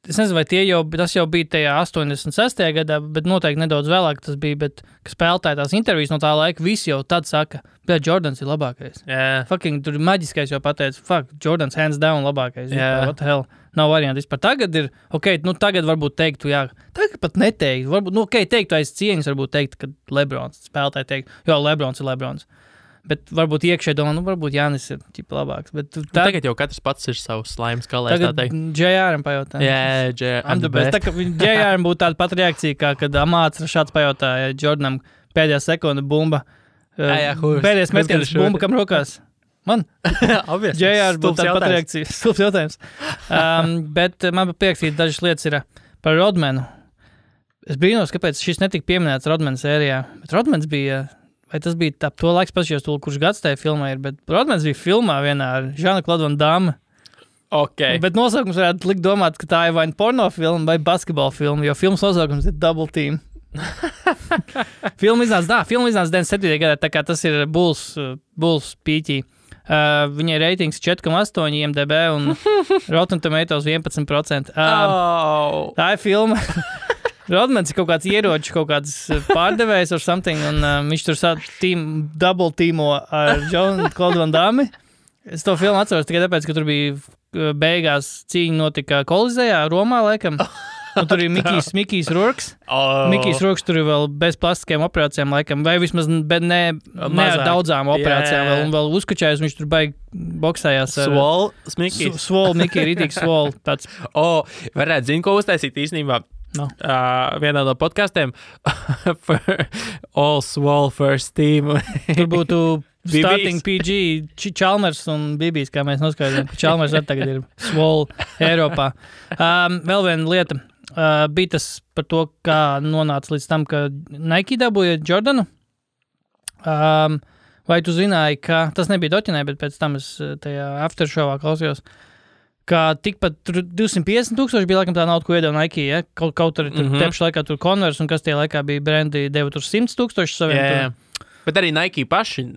es nezinu, vai tas jau bija tajā 86. gadā, bet noteikti nedaudz vēlāk tas bija, bet, ka spēlētāji tās intervijas no tā laika, visi jau tad saka, bet Jordans ir labākais. Fucking, tur maģiskais jau pateica, Jordans hands down labākais. What the hell? Nav varianti vispār. Tagad ir, tagad varbūt teiktu, tagad pat neteiktu, varbūt, teiktu aiz cieņas, varbūt teikt, ka Lebrons spēlētāji teikt, Lebrons ir Lebrons. Bet varbūt iekšē domā, varbūt Jānis ir ķipa labāks. Bet tagad jau katrs pats ir savs slaims kalēs, tā teikt. Tagad JR-am pajautā. I'm the best. Tā kā JR-am būtu tāda pat reakcija, kā kad Amāts Rašāds pajautāja Jordanam pēdējā sekunda bumba. Pēdējais metiens bumba, kam rokās? Man? JR būtu tāda pat reakcija. Stulbs jautājums. Bet man pierakstīja dažas lietas ir par Rodmanu. Es brīnos, kāpēc šis netika pieminēts Rodmana sērijā. Bet Rodmans bija, vai tas bija tā, to laiks pašajos, kurš gads tajā filmā ir, bet Rodmans bija filmā vienā ar Jean-Claude Van Damme. Bet nosaukums varētu likt domāt, ka tā ir vai porno filma vai basketbola filma, jo filmas nosaukums ir Double Team. Filma iznāca 97. gadā, tā kā tas ir Bulls pīķī. Viņai reitings 4,8 IMDb un Rotten Tomatoes 11%. Tā ir filma. Rodmans ir kaut kāds ieroču, kaut kāds pārdevējs or something, un viņš tur double teamo ar Jean-Claude Van Damme. Es to filmu atceros tikai tāpēc, ka tur bija beigās cīņa notika Kolizejā, Romā, laikam. Un tur ir Mikijs Rourks. Mikijs Rourks tur ir vēl bez plastiskajām operācijām, laikam, vai vismaz ne ar daudzām operācijām, un vēl uzkačājus, viņš tur baigi boksējās. Svol, Mikija, rītīgs svol. Varētu zinu, ko uztaisīt īstenībā. No. Vienā no podcastiem All Swole First Team. Tur būtu Starting PG, Chalmers un Bibijs, kā mēs noskaidrojam. Chalmers arī tagad ir Swole Eiropā. Vēl viena lieta. Bija tas par to, kā nonāca līdz tam, ka Nike dabūja Jordanu. Vai tu zināji, ka tas nebija doķinē, bet pēc tam es tajā aftershowā klausījos, ka tikpat 250,000 bija laikam tā nauda, ko iedeva Nike, ja? Kaut arī tur tepšu laikā tur Converse, un kas tie laikā bija brendi, deva tur 100,000 saviem. Bet arī Nike paši,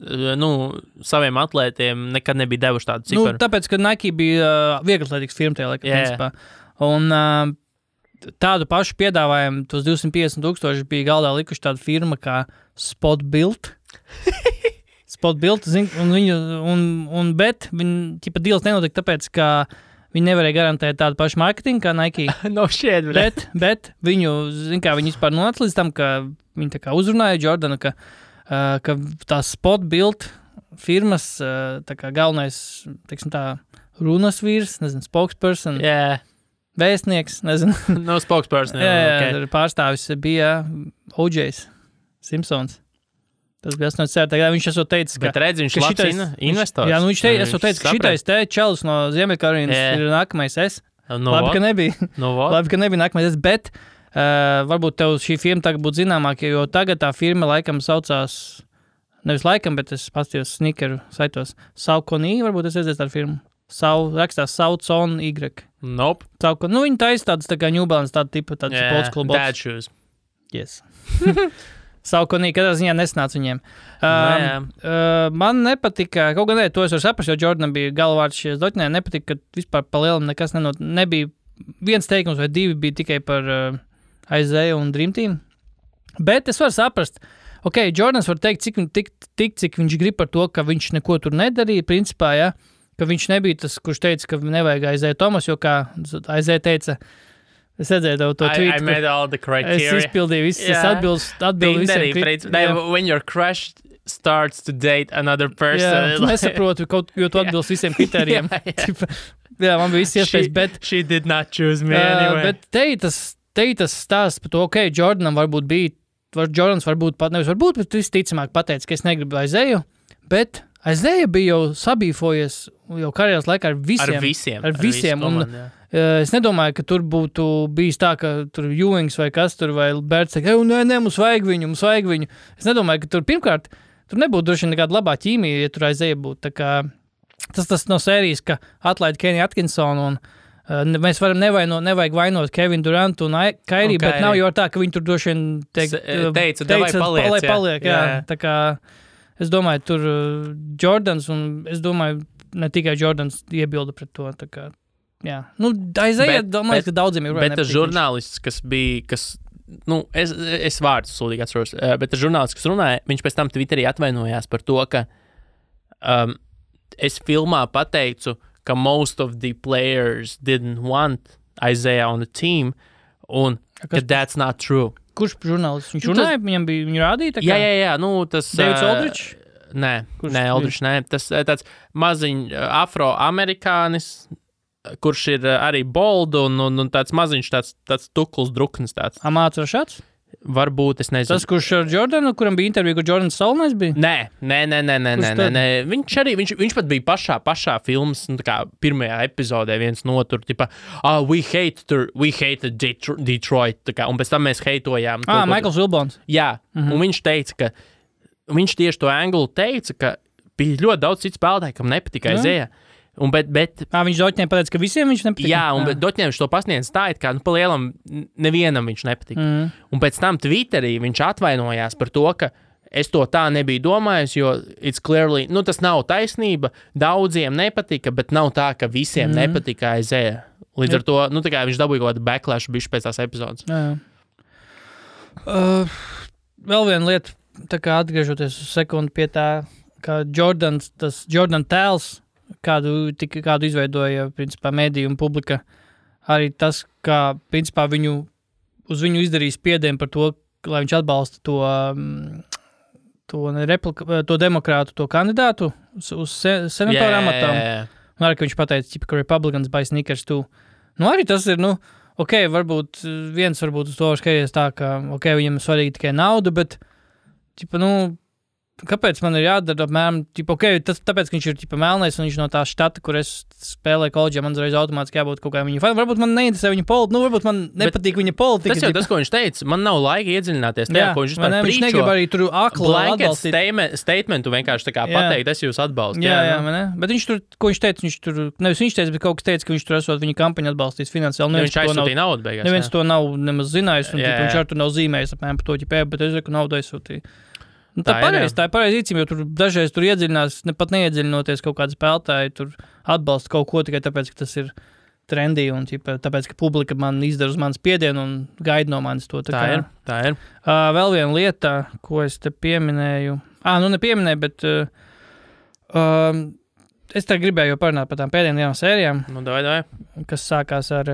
saviem atlētiem nekad nebija devuši tādu ciparu. Tāpēc, ka Nike bija vieglatlētīgs firma tajā laikā, principā. Un tādu pašu piedāvājumu, tos 250,000 bija galdā likuši tāda firma kā Spot Built. Spot Built, bet viņi deals nenotika tāpēc, ka viņi nevarēja garantēt tādu pašu marketingu kā Nike. No shit, bet viņu, viņi vispār nonāca līdz tam, ka viņi tā kā uzrunāja Jordanu, ka tā Spot Built firmas tā kā galvenais, teiksim tā, runas vīrs, nezinu, spokesperson. Vēstnieks, nezinu. No spokesperson. Jā, pārstāvis bija O.J. Simpsons. Tas bija 80. gadā. Viņš esot teicis, ka... Bet redz, viņš labs investors. Jā, viņš esot teicis, ka šitais čelis no Ziemeļkarolīnas ir nākamais es. Labi, ka nebija. Labi, ka nebija nākamais es, bet varbūt tev šī firma tagad būtu zināmāka, jo tagad tā firma laikam saucās, nevis laikam, bet es pastījos sneakeru saitos. Saukonī, varbūt es redzēju tādu firmu. Rakstās Saucon Y. Nope. Viņi taisa tādas tā kā New Balance, tāda tipa, tāds sports school bots. Dad shoes. Yes. Saukonī, katrā ziņā nesnāca viņiem. Man nepatika, kaut gan to es varu saprast, jo Jordanam bija galvārds šies doķinē, nepatika, ka vispār pa lielam nekas nebija. Viens teikums vai divi bija tikai par Isaiah un Dream Team. Bet es varu saprast, Jordans var teikt, cik viņš grib par to, ka viņš neko tur nedarīja, principā, ja, ka viņš nebija tas, kurš teica, ka nevajag Isaiah Thomas, jo kā Isaiah teica, es redzēju to tweet. I made all the criteria. Es izpildīju visu, es atbildu visiem. When your crush starts to date another person. Nesaprotu, jo tu atbilst visiem kritērijiem. Jā, man bija viss iespējas, bet... She did not choose me anyway. Bet te tas stāsts par to, Jordanam varbūt bija Jordans varbūt pat, nevis varbūt, bet visticamāk pateica, ka es negribu Aizēju, bet Aizēja bija jau sabīfojies jau karjeras laikā ar visiem. Komandu, Es nedomāju, ka tur būtu bijis tā, ka tur Ewings vai kas tur, vai Bērts teikt, nē, mums vajag viņu. Es nedomāju, ka tur pirmkārt, tur nebūtu droši nekāda labā ķīmija, ja tur Aizēja būtu. Tā kā tas no sērijas, ka atlaid Kenny Atkinsonu un mēs varam nevajag vainot Kevin Durantu un Kairi, bet nav jau tā, ka viņi tur droši vien teica paliek. Jā. Tā kā es domāju, tur Jordans un es domāju, ne tikai Jordans iebilda pret to. Tā kā, jā. Aizēja, domāju, ka daudziem ir bet tas žurnālists, kas es vārdus sūdīgi atceros, bet tas žurnālists, kas runāja, viņš pēc tam Twitterī atvainojās par to, ka es filmā pateicu, ka most of the players didn't want Isaiah on the team, un ka that's not true. Kurš žurnālists? Viņš runāja, viņu rādīja? Jā, tas... Davids Aldridge? Nē, Aldridge, nē. Tas tāds maziņš afroamerikānis, kurš ir arī bold un tāds maziņš, tāds tukls druknis tāds. Amāts Rašats? Varbūt, es nezinu. Tas, kurš ar Jordanu, kuram bija intervija, kur Jordans Saulnais bija? Nē. Viņš pat bija pašā filmas, tā kā pirmajā epizodē viens no tur, tipa, we hated Detroit, tā kā, un pēc tam mēs heitojām. Michaels Wilbons. Jā, un viņš teica, ka, viņš tieši to anglu teica, ka bija ļoti daudz citu spēlētāju, kam nepatika Aizēja. Bet viņš Doķņiem pateica, ka visiem viņš nepatika? Jā, un Doķņiem viņš to pasniedz tā, it kā, pa lielam nevienam viņš nepatika. Un pēc tam Twitterī viņš atvainojās par to, ka es to tā nebiju domājis, jo it's clearly, tas nav taisnība, daudziem nepatika, bet nav tā, ka visiem nepatika Aizēja. Līdz ar to, tā kā viņš dabūja kaut kādu backlash bišķi pēc tās epizodes. Jā. Vēl viena lieta, tā kā atgriežoties uz sekundi pie tā, ka Jordan tēls, kādu izveidoja, principā, mediju un publika, arī tas, kā, principā, uz viņu izdarīja spiedienu par to, lai viņš atbalsta to demokrātu, to kandidātu uz senatora amatām. Un arī, ka viņš pateica, ka Republicans buy sneakers too. Arī tas ir, varbūt uz to skaties tā, ka, viņam svarīgi tikai nauda, bet, kāpēc man ir jādara apmēram, tāpēc, ka viņš ir melnais un viņš no tā štata, kur es spēlēju koledžā, man uzreiz automātiski jābūt kaut kā viņa fani. Varbūt man neinteresē viņa politika, varbūt man nepatīk viņa politika. Tas jau tas, ko viņš teica, man nav laika iedziļināties tajā, ko viņš vispār viņš negrib arī tur akli atbalstīt. Statementu vienkārši tā kā pateikt, es jūs atbalstu. Jā, bet viņš tur, ko viņš teica, nevis viņš teica, bet kaut kas teica, ka viņš tur esot viņa kampaņu atbalstīs finansiāli. Viņš aizsūtīja naudu beigās. Neviens to nav nemaz zinājis, un viņš ar to nav zīmējis apmēram par to, bet es reku naudu aizsūtīju. Tā ir pareizi īcība, jo tur dažreiz tur iedziļinās, pat neiedziļinoties kaut kādu spēlētāju, tur atbalsta kaut ko tikai tāpēc, ka tas ir trendy un tāpēc, ka publika man izdara uz manas spiedienu un gaida no manis to. Tā ir. Vēl viena lieta, ko es te pieminēju. Nepieminēju, bet es te gribēju jau parunāt par tām pēdējām sērijām. Davai. Kas sākās ar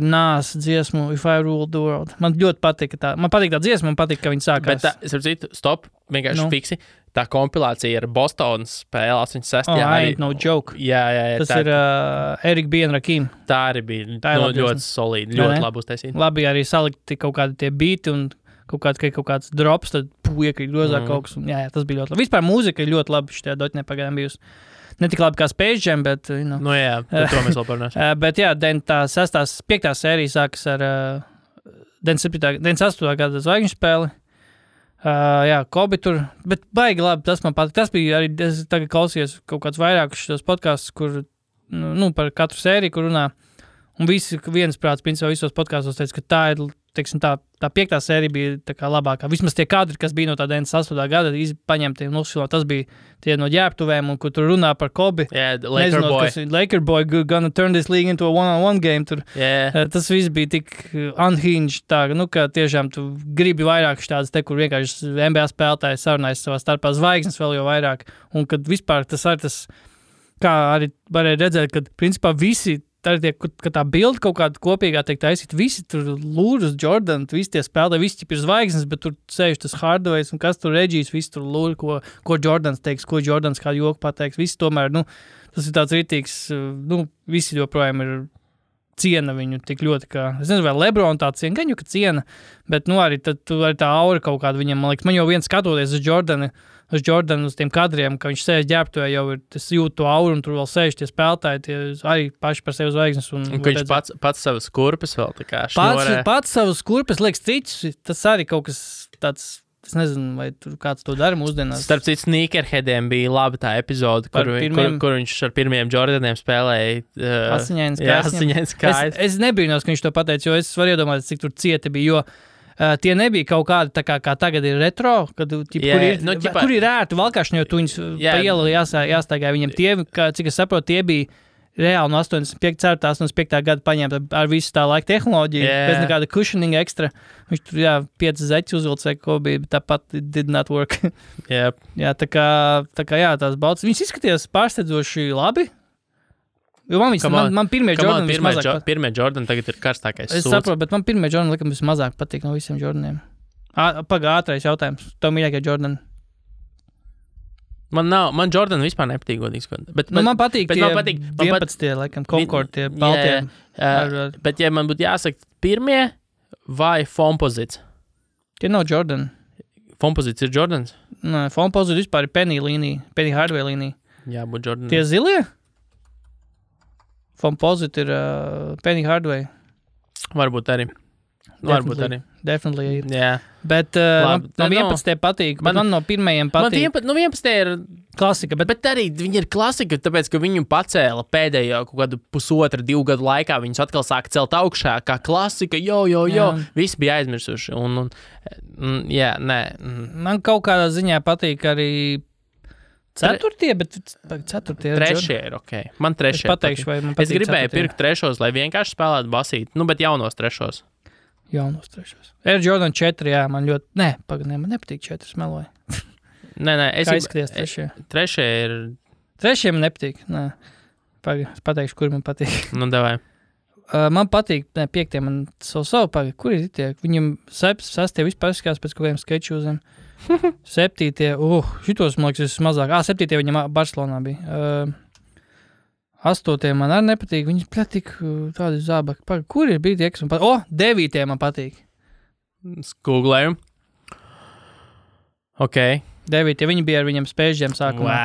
Nas dziesmu If I Ruled the World. Man ļoti patīk tā. Man patīk tā dziesma, man patīk, ka viņi sākās. Bet stop, vienkārši fiksi. Tā kompilācija ar Bostonas spēle 86. Ain't no joke. Jā. Tas ir Eric B. un Rakim. Tā arī bija ļoti solīdi, ļoti labi uztaisīta. Labi arī salikti kaut kādi tie beati un kaut kāds drops, tad iekrīt grozā kaut kas. Jā, tas bija ļoti labi. Vispār mūzika ir ļoti labi šitajā Doķņē pagaidām bijusi. Ne tik labi kā Space Jam, bet... jā, par to mēs vēl parunāsim. Bet jā, 5. sērija sākas ar 98. gada zvaigžņu spēli. Jā, Kobe tur, bet baigi labi, tas man patīk. Tas bija arī, es tagad klausījos kaut kāds vairākus šos podkastus, kur, par katru sēriju, kur runā. Un viensprāts, principā, visos podkastos teica, ka tā ir, teiksim, tā 5. sērija bija tā kā labākā. Vismaz tie kadri, kas bija no tā 98. gada, paņemti un uzfilmēti. Tas bija tie no ģērbtuvēm, un kur tur runā par Kobe. Laker boy gonna turn this league into a one-on-one game. Tur. Tas viss bija tik unhinged, tā, ka tiešām tu gribi vairāk štādas te, kur vienkārši NBA spēlētāji sarunājas savā starpā zvaigznes vēl jau vairāk. Un kad vispār tas arī tas, kā arī varēja redzēt, kad principā visi ka tā bilde kaut kāda kopīgā tiek taisīta, visi tur lūras Jordan, visi tie spēlētāji, visi ir zvaigznes, bet tur sēž tas Hardways un kas tur Regijs, visi tur lūra, ko Jordans teiks, ko Jordans kādu joku pateiks, visi tomēr, tas ir tāds rītīgs, visi joprojām ir ciena viņu tik ļoti, kā, es nezinu, vai Lebron tā ciena, gan jau, ka ciena, bet, nu, arī tā aura kaut kāda viņam, man liekas, man jau viens skatoties uz Jordanu, uz tiem kadriem, ka viņš sēž ģērbtuvē, jau ir, es jūtu to auru, un tur vēl sēž tie spēlētāji, tie arī paši par sevi zvaigznes. Un ka viņš pats savas kurpes vēl tā kā šņorē. Pats savas kurpes, liekas, cits, tas arī kaut kas tāds, es nezinu, vai tur kāds to dara mūsdienās. Starp citu, sneakerheadiem bija laba tā epizode, kur viņš ar pirmiem Jordaniem spēlēja asiņains kājas. Es nebrīnos, ka viņš to pateica, jo es varu iedomāties, cik tur cieti bija, jo tie nebija kaut kādi, tā kā tagad ir retro, kad, kur ir ērti valkāšņi, jo tu viņus pa ielu jāstaigāja viņiem. Tie, cik es saprotu, tie bija reāli no 85. gada paņemta ar visu tā laika tehnoloģiju, bez nekāda cushioning ekstra. Viņš tur, 5 zeķi uzvilc vai ko bija, bet tāpat did not work. Yep. Tā kā tās baltas. Viņas izskatījās pārsteidzoši labi. Jo man pirmie Jordan vismazāk patīk. Pirmie Jordan tagad ir karstākais sūds. Es saprotu, bet man pirmie Jordan likam vismazāk patīk no visiem Jordaniem. Ātrais jautājums. Tev mīļākie Jordan? Man Jordan vispār nepatīk godīgs. Man patīk tie 11, laikam, Concord, tie baltie. Bet ja man būtu jāsaka pirmie vai Foamposites? Tie nav Jordan. Foamposites ir Jordans? Nē, Foamposites vispār ir Penny Hardaway līnija. Jā, būt Jordan. Tie zilie? Foamposite ir Penny Hardaway. Varbūt arī. Definitely. Jā. Bet no 11. patīk. Man no pirmajiem patīk. Man 11. ir klasika. Bet arī viņi ir klasika, tāpēc, ka viņu pacēla pēdējo kaut kādu 1,5–2 gadu laikā. Viņus atkal sāka celt augšā, kā klasika, jo. Visi bija aizmirsuši. Man kaut kādā ziņā patīk arī ceturtie, bet ceturtie ir trešie ir ok. Man trešie pateikšu, vai man patīk. Es gribēju pirkt trešos, lai vienkārši spēlētu basīt, bet jaunos trešos. Air Jordan 4, jā, man ļoti... man nepatīk 4, smeloju. Nē, kā izskaties trešie? Trešie ir... Trešie man nepatīk, es pateikšu, kur man patīk. Davai. Man patīk, 5, man savu pagaid, kur ir tie? Viņam 6 vispār izskās pēc kaut kādiem skečūziem. 7, šitos, man liekas, mazāk. 7 viņam Barcelonā bija. 8 man arī nepatīk. Viņas platīk tādi zābaki. Kur ir bija tie, kas man patīk? 9 man patīk. Googlēju. Ok. 9, viņi bija ar viņam spēžģiem sākumā,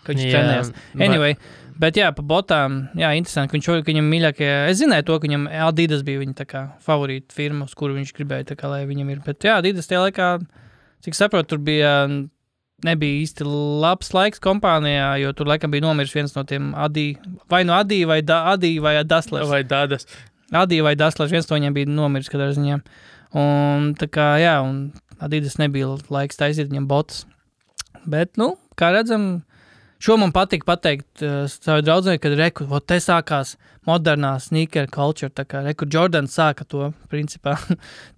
kad viņš trenējās. Anyway, bet pa botām, interesanti, ka viņam mīļākie, es zināju to, ka viņam Adidas bija viņa tā kā favorīta firma, uz kuru viņš gribēja tā kā, lai viņam ir. Bet Adidas tie laikā, cik saprotu, tur nebija īsti labs laiks kompānijā, jo tur laikam bija nomiris viens no tiem Adi vai Daslers. Vai Dadas. Adi vai Daslers, viens no viņiem bija nomiris katrā ziņā. Un tā kā, un Adidas nebija laiks taisīt viņam botas. Bet, kā redzam, šo man patīk pateikt savu draudzēju, kad te sākās modernā sneaker culture, tā kā Jordan sāka to, principā.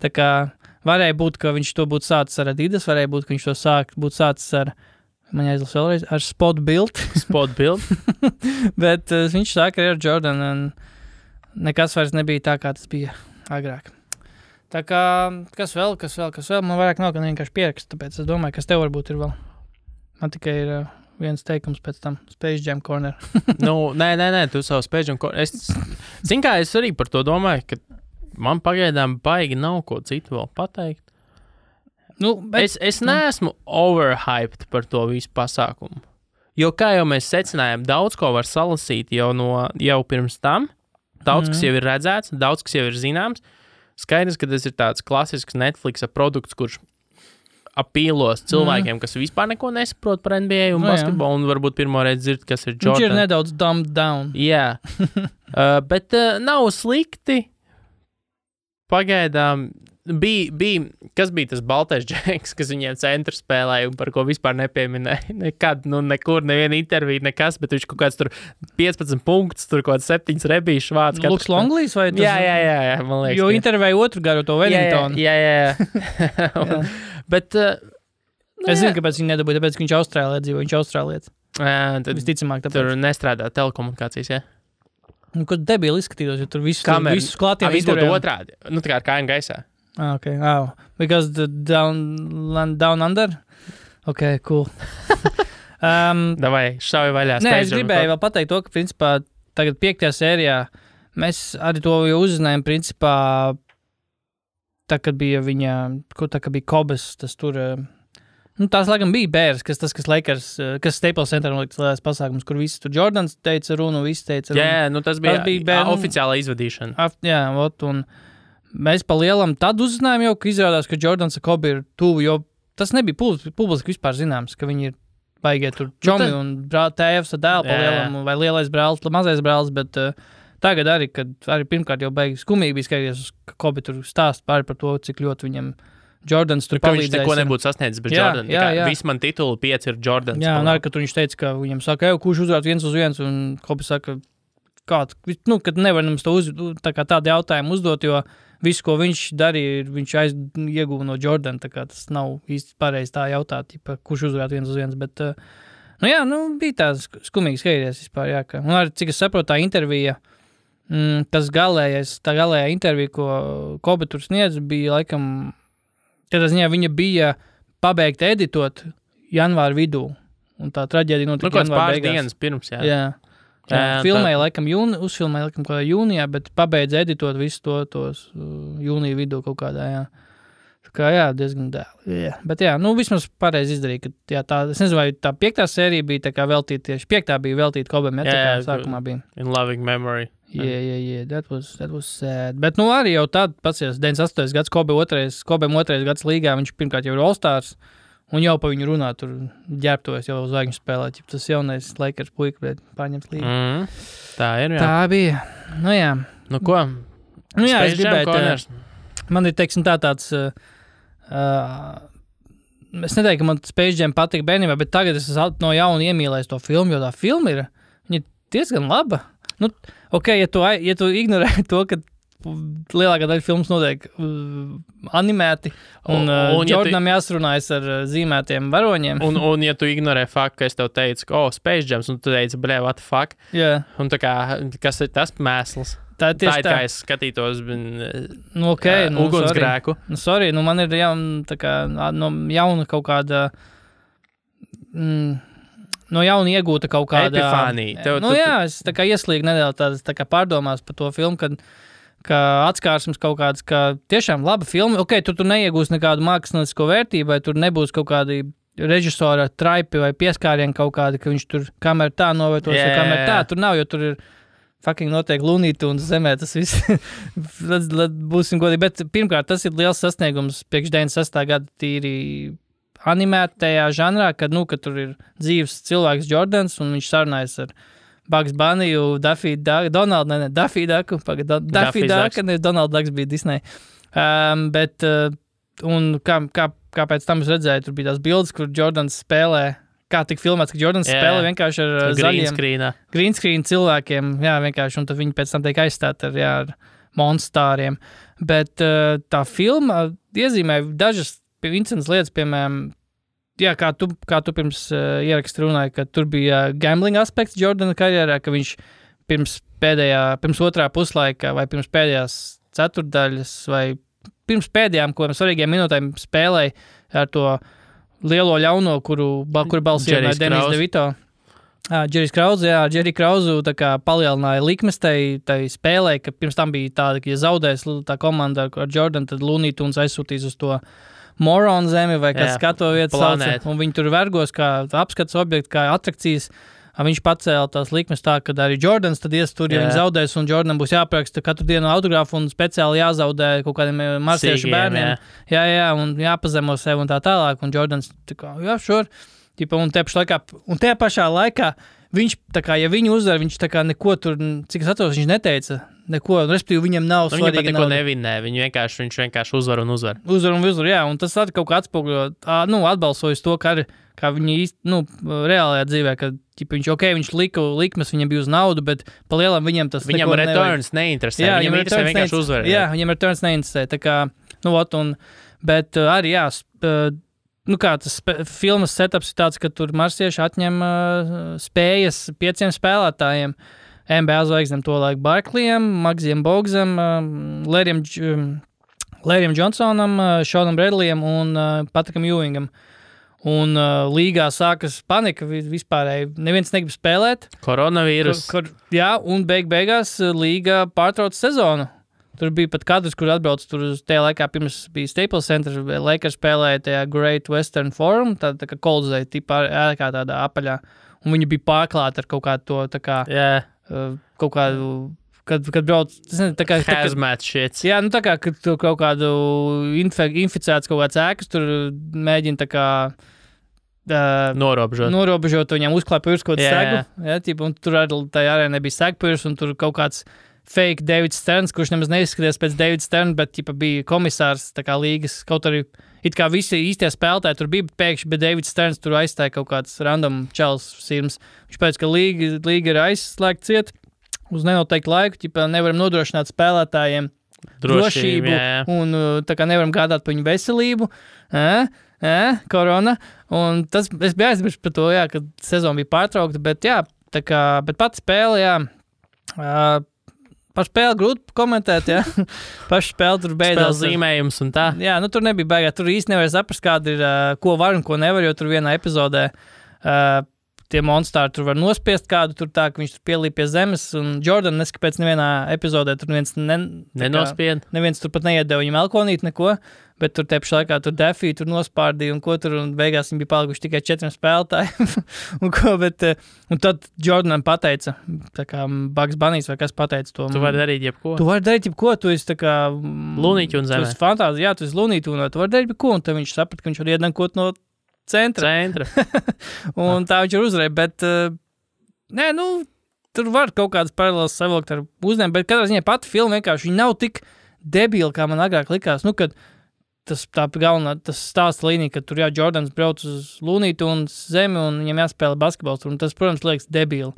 Tā kā varēja būt, ka viņš to būtu sācis ar Adidas, varēja būt, ka viņš to būtu sācis ar, man jāizlas vēlreiz, ar Spot Build. Bet viņš sāka ar Jordan, un nekas vairs nebija tā, kā tas bija agrāk. Tā kā, kas vēl, man vairāk nav, ka vienkārši pierakst, tāpēc es domāju, kas tev varbūt ir vēl. Man tikai ir viens teikums pēc tam, Space Jam Corner. Nē, tu savu Space Jam Corner. Zin kā, es arī par to domāju, ka man pagaidām baigi nav ko citu vēl pateikt. Es neesmu overhyped par to visu pasākumu. Jo, kā jau mēs secinājām, daudz ko var salasīt jau pirms tam. Daudz, kas jau ir redzēts, daudz, kas jau ir zināms. Skaidrs, ka tas ir tāds klasisks Netflixa produkts, kurš apīlos cilvēkiem, kas vispār neko nesaprot par NBA un basketbolu, un varbūt pirmo reizi dzird, kas ir Jordan. Viņš ir nedaudz dumbed down. Jā, bet nav slikti. Pagaidām kas bija tas baltais džeks, kas viņiem centru spēlēja un par ko vispār nepieminēja. Nekad, nekur, neviena intervija, nekas, bet viņš kaut kāds tur 15 punktus, tur kaut kāds 7 rebīšu vārds. Luks Longlīs vai tas? Jā, man liekas. Jo intervēja otru garu to Wellingtonu. Jā. Bet... es zinu, kāpēc viņi nedabūja, tāpēc, ka viņš Austrālijā dzīvo, viņš Austrālietis. Visticamāk, tāpēc. Tur nestrādā telekomunikācijas, jā? Kad debili izskatītos, jo tur visus klātiem izturējām. Otrādi, tā kā ar kājām gaisā. Okay, because the down under? Okay, cool. Davai, šauj vaļā. Nē, es gribēju vēl pateikt to, ka principā tagad 5. sērijā mēs arī to jau uzzinājām, principā, tā, kad bija viņa, tā, kad bija Kobes, tas tur, tās, laikam, bija Bērs, kas Lakers, kas Staples Center noliktas lielais pasākums, kur visi tur Jordans teica runu, visi teica runu. Jā, tas bija oficiāla izvadīšana. Jā, un mēs pa lielam tad uzzinājām jau, ka izrādās, ka Jordans ar Kobe ir tuvu, jo tas nebija publiski vispār zināms, ka viņi ir baigie tur čomi un tēvs ar dēlu pa lielam, vai lielais brālis, mazais brālis, bet tagad arī, kad arī pirmkārt jau baigi skumīgi bija skatīties, ka Kobe tur stāst pāri par to, cik ļoti viņam Jordans tur palīdzēs. Ka viņš neko nebūtu sasniedzis bez Jordan. Visi man tituli 5 ir Jordans. Jā, un arī, kad viņš teica, ka viņam saka, kurš uzvarēt 1-1, un Kobe saka, kad nevar mums tādu jautājumu uzdot, jo visu, ko viņš darīja, viņš ieguva no Jordan, tā kā tas nav īsti pareizi tā jautāt, kurš uzvarēt 1-1, bet, bija tā skumīgi skatīties vispār, jā, un arī, cik es saprotu, tā intervija, tā galējā intervija, ko Kobe tur sniedz, bija, laikam, tādā ziņā viņa bija pabeigta editot janvāra vidū, un tā traģēdija notika janvāra beigās. Dienas pirms, jā. Filmēja, laikam, uzfilmēja, laikam, kādā jūnijā, bet pabeidz editot visu tos jūnija vidū kaut kādā, jā. Tā kā, jā, diezgan dēli. Jā. Bet, jā, vismaz pareizi izdarīja, ka, jā, es nezinu, vai tā 5. sērija bija tā kā veltīta tieši, 5. bija veltīta Kobem, tā kā sākumā bija. In loving memory. Yeah, that was sad. Bet, arī jau tad, pats 98. gads, Kobem 2. gads līgā, viņš pirmkārt jau ir All-Stars, un jau pa viņu runā, tur ģērbtojas jau zvaigžņu spēlēt, ja tas jaunais Lakers puika, bet pārņems līgu. Tā ir, jā. Tā bija. Jā. Ko? Jā, es gribētu. Man ir, teiksim, tāds, es neteiktu, ka man Space Jam patika bērnībā, bet tagad es no jauna iemīlēju to filmu, jo tā filma ir, viņa diezgan laba. Ja tu ignorē to, ka lielākā daļa filmas notiek animēti, un Jordanam jāsarunājas ar zīmētiem varoņiem. Un ja tu ignorē faktu, ka es tev teicu, ka, Space Jams, un tu teici, what the fuck? Jā. Un tā kā, kas ir tas mēsls? Tā ir kā es skatītos ugunsgrēku. Sorry, man ir jauna kaut kāda... No jauna iegūta kaut kāda... Epifānija. Es tā kā ieslīgu nedaudz tā kā pārdomās par to filmu, ka atskārsmes kaut kāds, ka tiešām laba filma. Tur neiegūs nekādu māksliniecisko vērtību, vai tur nebūs kaut kādi režisora traipi vai pieskārieni kaut kādi, ka viņš tur kamēr tā novietos, vai kamēr tā. Tur nav, jo tur ir fucking noteikti Lunīti un zemē tas viss. Būsim godīgi. Bet pirmkārt, tas ir liels sasniegums priekš 96. gada tīri animētajā žanrā, kad tur ir dzīves cilvēks Jordans, un viņš sarunājas ar Bugs Bunny, Daffy Duck, Daffy Duck, Donald Ducks bija Disney. Bet, un kāpēc tam es redzēju, tur bija tās bildes, kur Jordans spēlē, kā tik filmēts, ka Jordans spēlē vienkārši ar zaļiem green screen cilvēkiem, jā, vienkārši, un tad viņi pēc tam tiek aizstāti ar monstāriem. Bet tā filma iezīmē dažas interesantas lietas, piemēram, jā, kā tu pirms ieraksta runāji, ka tur bija gambling aspekts Jordana karjerā, ka viņš pirms otrā puslaika vai pirms pēdējās ceturtdaļas vai pirms pēdējām svarīgiem minūtēm spēlēja ar to lielo ļauno, kuru balsīja Denis DeVito. Jerry Krauzu tā kā palielināja likmes tai spēlē, ka pirms tam bija tāda, ka ja zaudēs tā komanda ar Jordan, tad Looney Tunes aizsūtīs uz to Moron zemi vai kāds skato vietas sauca, un viņi tur vergos kā apskats objekti, kā atrakcijas. Viņš pacēla tās likmes tā, ka arī Jordans tad ies tur, ja viņi zaudēs, un Jordanam būs jāpraksta katru dienu autogrāfu un speciāli jāzaudē kaut kādiem marsiešu bērniem. Jā, un jāpazemo sev un tā tālāk, un Jordans tā kā, sure. Un tajā pašā laikā viņš, tā kā, ja viņu uzvar, viņš tā kā neko tur, cik es atceros, viņš neteica neko, respektīvi viņam nav svarīgi. Viņam pat neko nevinē, viņš vienkārši uzvar un uzvar. Uzvar, jā, un tas arī kaut kā atspoguļo, atbalsojas to, kā viņi īsti, reālajā dzīvē, ka viņš lika likmes, viņam bija uz naudu, bet pa lielam viņam tas viņam returns neinteresē, viņam interesē vienkārši uzvar. Jā, viņam returns neinteresē, tā kā, bet arī, jā, kā tas filmas setups ir tāds, ka tur marsieši atņem spējas 5 spēlētājiem, NBA zvaigznēm to laiku Barkleyam, Magsiem Bogsam, Larryam Johnsonam, Seanam Bradleyam un Patrikam Ewingam. Un līgā sākas panika vispārēji. Neviens negrib spēlēt. Koronavīrus. Jā, un beigās līga pārtrauc sezonu. Tur bija pat kadrs, kur atbrauc tur uz tajā laikā, pirms bija Staples Center, Lakers spēlēja tajā Great Western Forum, tā kā Koldzei tipā ēkā tādā apaļā. Un viņi bija pārklāti ar kaut kādu to, tā kā, kaut kādu, kad brauc, tas nezinu, tā kā... Hazmat shit. Jā, nu tā kā, kad tur kaut kādu inficēts kaut kāds ēkas, tur mēģina tā kā... Norobežot, viņam uzklāja pirms kaut kādu segu. Jā, tipu, un tur tajā arī nebija segpirms, un tur kaut kāds fake Davids Sterns, kurš nemaz neizskaties pēc Davids Sterns, bet tipa, bija komisārs tā kā līgas, kaut arī it kā visi īstie spēlētāji tur bija, bet pēkšņi, bet Davids Sterns tur aizstāja kaut kāds random čels sirms. Viņš pēc, ka līga ir aizslēgta ciet uz nenoteiktu laiku, tipa, nevaram nodrošināt spēlētājiem drošību un tā kā nevaram gādāt par viņu veselību. Korona. Un tas, es biju aizmirst par to, jā, kad sezona bija pārtraukta, bet jā, tā kā, bet pati spēle, jā, par spēli grūti komentēt, jā. Pašu spēli tur beidzās. Spēles zīmējums un tā. Jā, nu tur nebija baigā, tur īsti nevar saprast, kāda ir, ko var un ko nevar, jo tur vienā epizodē tie monstāri tur var nospiest kādu, tur tā, ka viņš tur pielīp pie zemes, un Jordan neskapēc nevienā epizodē tur nenospied. Neviens tur pat neiedeva viņam elkonīt neko, bet tur tepši laikā tur Defī tur nospārdīja un ko tur, un beigās viņi bija palikuši tikai 4 spēlētāji. Un tad Jordanam pateica, tā kā Bugs Bunnies vai kas pateica to. Tu vari darīt jebko. Tu vari darīt jebko, tu esi tā kā... Lunīķi un zemē. Tu esi fantāzi, jā, tu esi lunīti un tu vari darīt jebko, un tad viņš saprat, ka viņš var iedankot no centra. Un tā viņš ir uzvarēja, bet nē, nu, tur var kaut kādas paralēlas savilkt ar uzņēmumu, bet katrā ziņā pati filma vienkārši, viņa nav tik debila, kā man agrāk likās. Nu, kad tas stāsta līnija, ka tur jā, Jordans brauc uz lunītu un zemi un viņam jāspēlē basketbols, un tas, protams, liekas debili.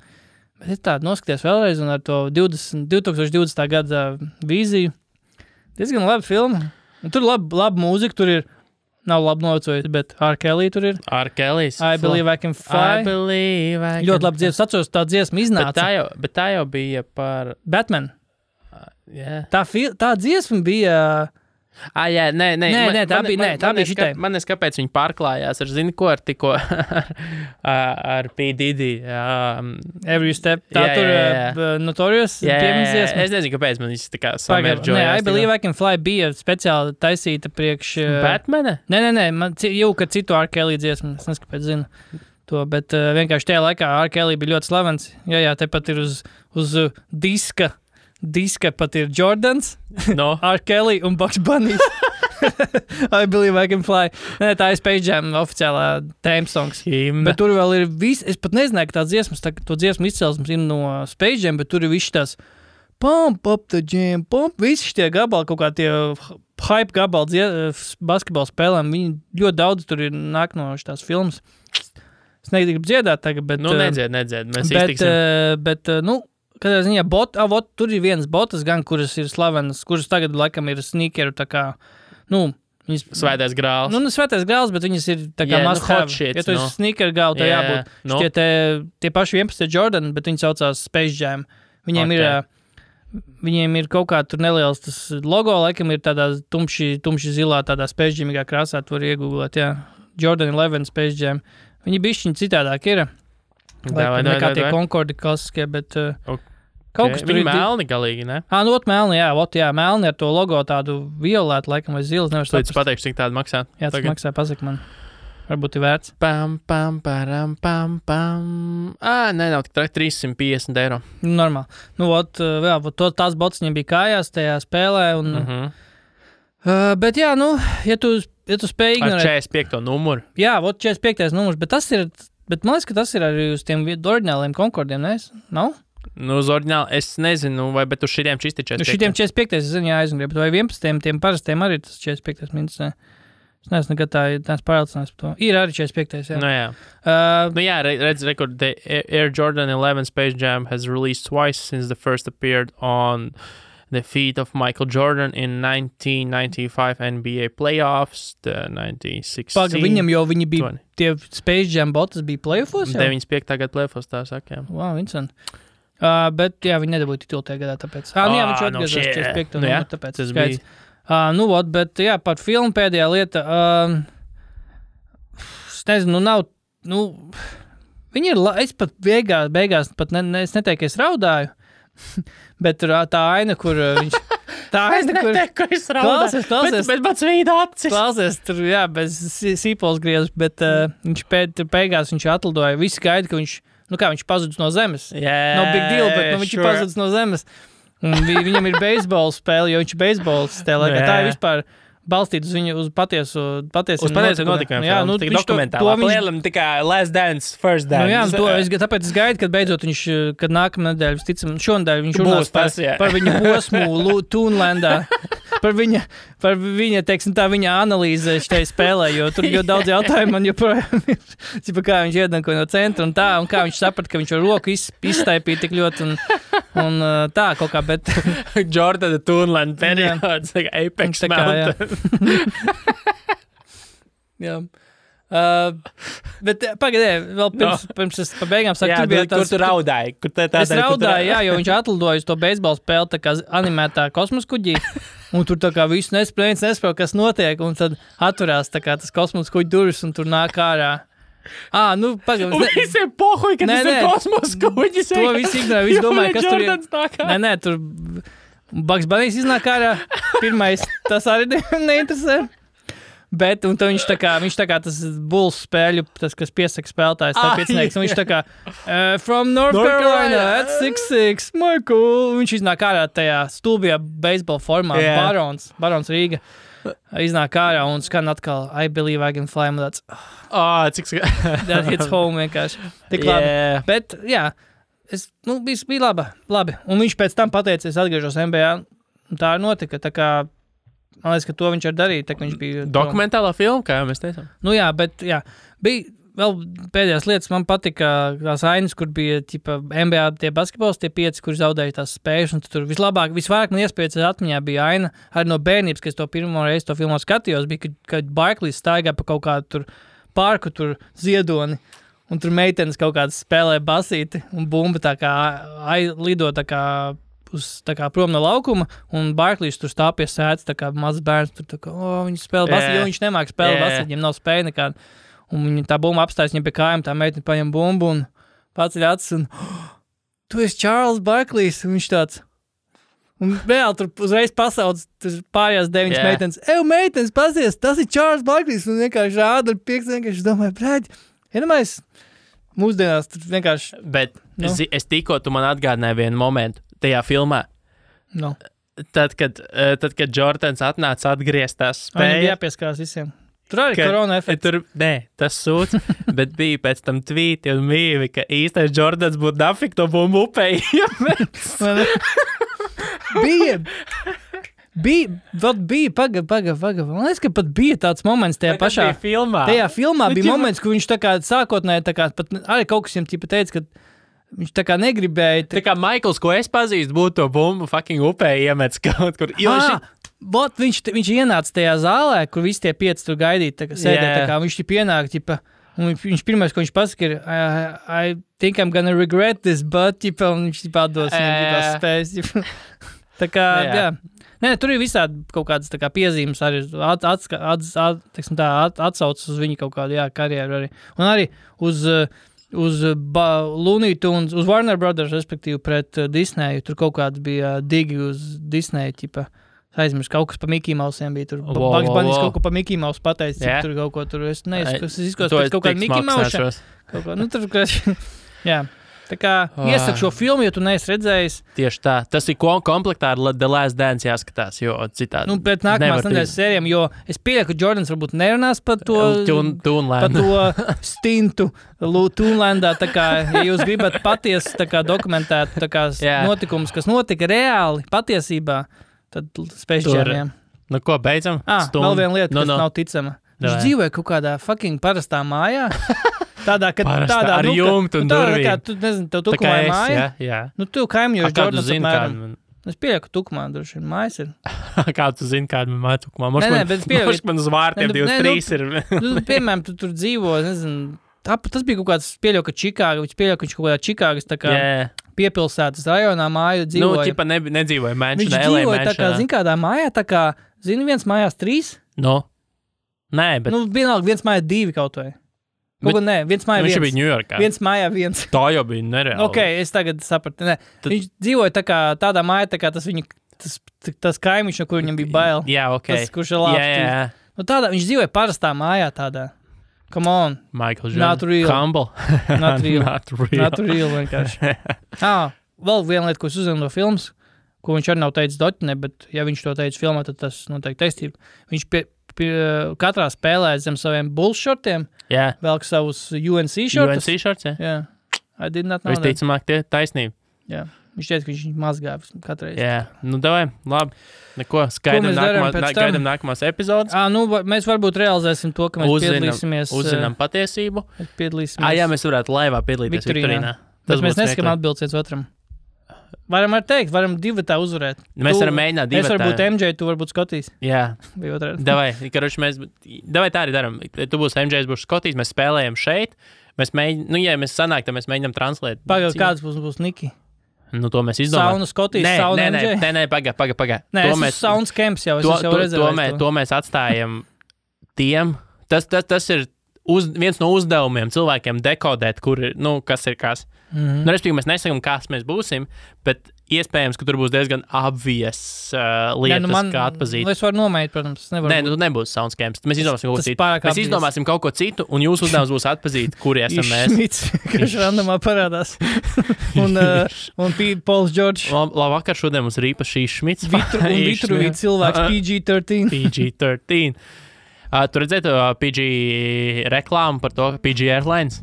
Bet es tādu noskaties vēlreiz un ar to 2020. Gada vīziju. Diezgan laba filma. Un tur laba mūzika, tur ir nav labi novecojis, bet R. Kelly tur ir. R. Kelly's. I Believe I Can Fly. I Believe I Can Fly. Ļoti labi dziesma. Atceros, tā dziesma iznāca. Bet tā jau bija par... Batman. Yeah. Tā dziesma bija... Jā, nē, tā bija šitai. Man nes, kāpēc viņi pārklājās ar, zini, ko ar tikko ar P. Diddy. Every Step. Tā tur Notorious piemiņas dziesma. Es nezinu, kāpēc man viss tā kā samērģojās. Nē, I Believe I Can Fly bija speciāli taisīta priekš... Batmana? Nē, man jau, kad citu R. Kelly dziesmu, es nezinu, kāpēc zinu to, bet vienkārši tajā laikā R. Kelly bija ļoti slavens. Jā, tepat ir uz diska pat ir Jordans, R. Kelly un Bugs Bunny. I Believe I Can Fly. Nē, tā ir Space Jam oficiālā theme songs. Bet tur vēl ir viss, es pat nezināju, ka tā dziesmas, to dziesmu izcelsmes ir no Space Jam, bet tur ir viss tās pump up the jam, pump, visi šitie gabali, kaut kā tie hype gabali basketbola spēlēm, viņi ļoti daudz tur ir nāk no šitās filmas. Es negribu dziedāt tagad, bet... Nu, nedzied, mēs iztiksim. Bet, kādā ziņā tur ir vienas botas gan, kuras ir slavenas, kuras tagad laikam ir sneakeru tā kā, viņas... Svētais grāls. Svētais grāls, bet viņas ir tā kā must have. Ja tu esi sneakeru gālu, tā jābūt. Tie paši 11 Jordan, bet viņi saucās Space Jam. Viņiem ir kaut kā tur neliels tas logo, laikam ir tādā tumši zilā, tādā Space Jamīgā krāsā, tu var iegooglēt, jā. Jordan 11 Space Jam. Viņi bišķiņi citādāk ir. Nekā tie Concorde klasiskie, bet... Kaut kas tur ir melni galīgi, ne? Melni, jā, melni ar to logo tādu violētu, laikam, vai zilas, nevar saprast. Tu pateikšu, cik tādu maksā? Jā, tas maksā, pasaka man. Varbūt ir vērts. Pam. Nē, nav tik 350 eiro. Normāli. Tās botas viņam bija kājās tajā spēlē, un... Bet jā, ja tu spēj ignorēt... Ar 45. numuru. Jā, 45. numurs, bet tas ir... Bet man liekas, ka tas ir arī uz tiem oriģināliem Concordiem, ne? Nav? Uz oriģināli, es nezinu, bet uz šitiem čisti 45. Uz šitiem 45. es zinu, jāaizgrib, bet vai 11. tiem parastiem arī tas 45. minus, ne? Es neesmu nekad tās pārliecināts par to. Ir arī 45. jā. Jā, redz, rekord, the Air Jordan 11 Space Jam has released twice since the first appeared on the feet of Michael Jordan in 1995 NBA playoffs, the 1916. Viņam jau viņi bija, 20. Tie Space Jam botas bija playoffos jau? 95. gada playoffos, tā saka, jā. Wow, Vincent. Bet, jā, viņi nedabūja titulu tajā gadā, tāpēc. Jā, viņš atgriezās 45. numuru, tāpēc. Tas bija. Bet, jā, par filmu pēdējā lieta, es nezinu, nav, viņi ir, es pat beigās pat es neteiktu, ka es raudāju, bet tur tā aina, kur viņš... Tā aina, kur... Es raudāju. Klausies. Bet pats vīda acis. Klausies, tur, bez sīpols griezas, bet viņš beigās viņš atlidoja. Visi gaida, ka viņš pazudis no zemes. No big deal, bet viņš ir pazudis no zemes. Un viņam ir beisbola spēle, jo viņš ir beisbols spēlē. Tā ir vispār balstīt uz patiesu notikumiem. Jā, tik dokumentālā. Lielam tikai Last Dance, First Dance. Tāpēc es gaidu, kad beidzot viņš, kad nākamā nedēļa, visticam, šonadēļ viņš runās par viņa posmu Toonlandā, par viņa, teiksim tā, viņa analīze šitai spēlē, jo tur ļoti daudz jautājumu man joprojām ir, kā viņš iedanko no centra un tā, un kā viņš saprata, ka viņš ar roku izstaipīja tik ļoti un tā kaut kā, bet... Jordana Toonland periods, Apex Mountain. Jā. Bet pagaidēju, vēl pirms es pa beigām saku, kur tu raudāji? Es raudāju, jā, jo viņš atlidoja uz to beisbola spēli tā kā animētā kosmosa kuģī, un tur tā kā visu nesaprot, kas notiek, un tad atverās tā kā tas kosmosa kuģi durvis, un tur nāk ārā. Pagaidām. Un visiem pohuj, ka tas ir kosmosa kuģis. To visi ignorē, visi domāja, kas tur ir. Nē, tur Bugs Bunny iznāk ārā. Pirmais, tas arī neinteresē. Bet, un viņš tā kā tas Bulls spēļu, tas, kas piesaka spēlētājs, tā piecinieks, un viņš tā kā from North Carolina at 6'6", Michael. Viņš iznāk ārā tajā stulbajā beisbola formā, Barons Rīga. Iznāk ārā un skan atkal I believe I can fly, un tāds that hits home vienkārši. Tik labi. Bet, jā, bija labi. Un viņš pēc tam pateica, es atgriežos NBA, un tā notika, tā kā, man liekas, ka to viņš arī darīja, tā kā viņš bija... Dokumentālā filma, kā jau mēs teicām. Bija vēl pēdējās lietas, man patika tās ainas, kur bija NBA tie basketbols, tie 5, kur zaudēja tās spējas, un tur visvairāk man iespējas atmiņā bija aina, arī no bērnības, kad es to pirmo reizi to filmu skatījos, bija, kad Barklīs staigā pa kaut kādu tur parku, tur ziedoni, un tur meitenes kaut kādas spēlē basīti, un bumba tā kā lido tā kā prom no laukuma, un Barklīs tur stāv pie sēdes, tā kā mazs bērns, tur tā kā, viņi spēlē basīti, jo viņš nemāk spēlēt basīti, viņam nav spēja nekāda. Un viņa tā bumba apstājas viņam pie kājām, tā meitene paņem bumbu un paceļ acis un tu esi Charles Barklīs, un viņš tāds. Un reāli tur uzreiz pasauc pārējās 9 meitenes. Meitenes, pasies, tas ir Charles Barklīs, un vienkārši rāda ar piekstu, vienkārši domāju, brāļ, iedomājies, mūsdienās tur vienkārši. Bet es tikko tu man atgādināji vienu momentu tajā filmā. Tad, kad Jordans atnāca atgriezt tās spējas. Viņam jāpieskarās visiem. Tur arī korona efekts. Nē, tas sūds, bet bija pēc tam tvīti un mīvi, ka īstais Jordans būtu nafik to bumbu upēji. Bija, paga. Man liekas, ka pat bija tāds moments tajā pašā filmā. Tajā filmā bija moments, kur viņš tā kā sākotnēji, tā kā pat arī kaut kas viņam teica, ka viņš tā kā negribēja. Tā kā Maikls, ko es pazīstu, būtu to bumbu fucking upēji iemets kaut kur. Viņš ienāca tajā zālē, kur visi tie 5 tur gaidīja, tā kā sēdēja, tā kā viņš pienāk, un viņš pirmais, ko viņš pasaka, ir I think I'm gonna regret this, but, un viņš atdos, viņam spējas, tā kā, jā. Nē, tur ir visādi kaut kādas tā kā piezīmes, arī atsaucas uz viņu kaut kādu, karjeru arī. Un arī uz Looney Tunes, uz Warner Brothers, respektīvi pret Disneyu, tur kaut kāds bija digi uz Disneyu, aizmirst, kaut kas pa Mickey Mousiem bija tur. Bugs Bunny kaut ko pa Mickey Mouse pateicis, tur kaut ko tur. Es izskos pēc kaut kāda Mickey Mouse. Tur, jā. Tā kā iesaku šo filmu, ja tu neesi redzējis. Tieši tā. Tas ir komplektā ar The Last Dance jāskatās, jo citādi. Pēc nākamās nedēļas sērijām, jo es pieļauju, ka Jordans varbūt nerunās par to stintu Toonlandā. Tā kā, ja jūs gribat patiesi tā kā dokumentēt tā kā notikumus, kas notika reāli patiesībā, tad Space Jamiem. Ko, beidzam? Vēl viena lieta, kas nav ticama. Viņš dzīvoja kaut kādā fucking parastā mājā. Tādā ar jumtu un durvīm. Tu nezini, tev tukumā ir māja. Jā. Tu kaimiņoši Jordans apmēram. Es pieļauju, ka tukumā droši vien mājas ir. Kā tu zini, kāda man māja tukumā? Moš man uz vārtiem 23 ir. Piemēram, tu tur dzīvo, nezinu, tas bija kaut kāds pieļauju, ka Čikāga, viņš pieļauju, ka viņš kaut kādā Čikāgas tā kā piepilsētas rajonā māju dzīvoja. Ķipa nedzīvoja mansionā, LA mansionā. Viņš dzīvoja tā kā, zini, kādā mājā, tā kā, zini, viens mājās 3? Nē, bet... vienalga, viens mājās 2 kaut vai. Nē, viens mājā Viņš viens. bija Ņujorkā. Viens mājā viens. Tā jau bija nereāli. Ok, es tagad sapratu. Nē. Viņš dzīvoja tādā mājā, tā kā tas kaimiņš, no kur viņam bija bail. Jā, ok. Tas, kurš ir labs. Jā. Nu, viņš dzīvoja parastā mājā tādā. Come on. Michael Jordan. Not real. Humble. Not real. Not real vienkārši. Vēl viena lieta, ko es uzzinu no filmas, ko viņš arī nav teicis doķinē, bet ja viņš to teica filmā, tad tas noteikti taisnība. Viņš katrā spēlē zem saviem Bulls šortiem, velk savus UNC šortus. UNC šorts, jā. I did not know that. Visticamāk, tie taisnība. Jā. Viņš teica, ka viņš mazgāja katreiz. Jā, davai, labi. Neko, gaidām nākamās epizodes. Mēs varbūt realizēsim to, ka mēs piedalīsimies. Uzzinām patiesību. Piedalīsimies. Jā, mēs varētu laivā piedalīties Viktorīnā. Bet mēs neskatām atbildes viens otram. Varam arī teikt, varam divatā uzvarēt. Mēs varam mēģināt divatā. Es varu būt MJ, tu varbūt Skotijs. Jā. Vai otrādi. Davai tā arī daram. Tu būsi MJ, es būšu Skotijs, mēs spēlējam šeit. Mēs mēģinām, ja mēs sanāk, tad mēs mēģinām translēt. Pagaid, kāds būs Niki? To mēs izdomājam. Sauna Skotijas, sauna MJ? Nē, pagaid. Nē, es Sauns Camps jau, es jau rezervēju. To mēs atstājam tiem. Tas ir viens no uzdevumiem cilvēkiem dekodēt, kas ir kas. Respektīvi, mēs nesakām, kas mēs būsim, bet iespējams, ka tur būs diezgan obvious lietas, kā atpazīt. Es varu nomēt, protams. Nē, tu nebūsi Soundscapes. Mēs izdomāsim kaut ko citu. Mēs izdomāsim kaut ko citu, un jūsu uzdevums būs atpazīt, kuri esam mēs. Šmits, kurš randomā parādās. un Pauls George. Labvakar, šodien mums ir īpaši Šmits. Un Vitruvi cilvēks PG-13. PG-13. Tu redzētu PG reklāmu par to, ka PG Airlines?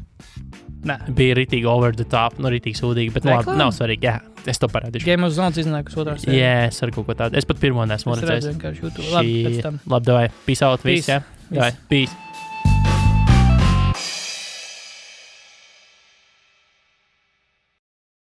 Nē. Bija ritīgi over the top, ritīgi sūdīgi, bet labi, nav svarīgi, jā, es to parādīšu. Game of Zones iznākas otrās sērijas. Jā, es ar kaut ko tādu. Es pat pirmo nesmu redzējis. Es redzu vienkārši YouTube. Labi, pēc tam. Labi, davai, peace out, viss, jā? Davai, peace.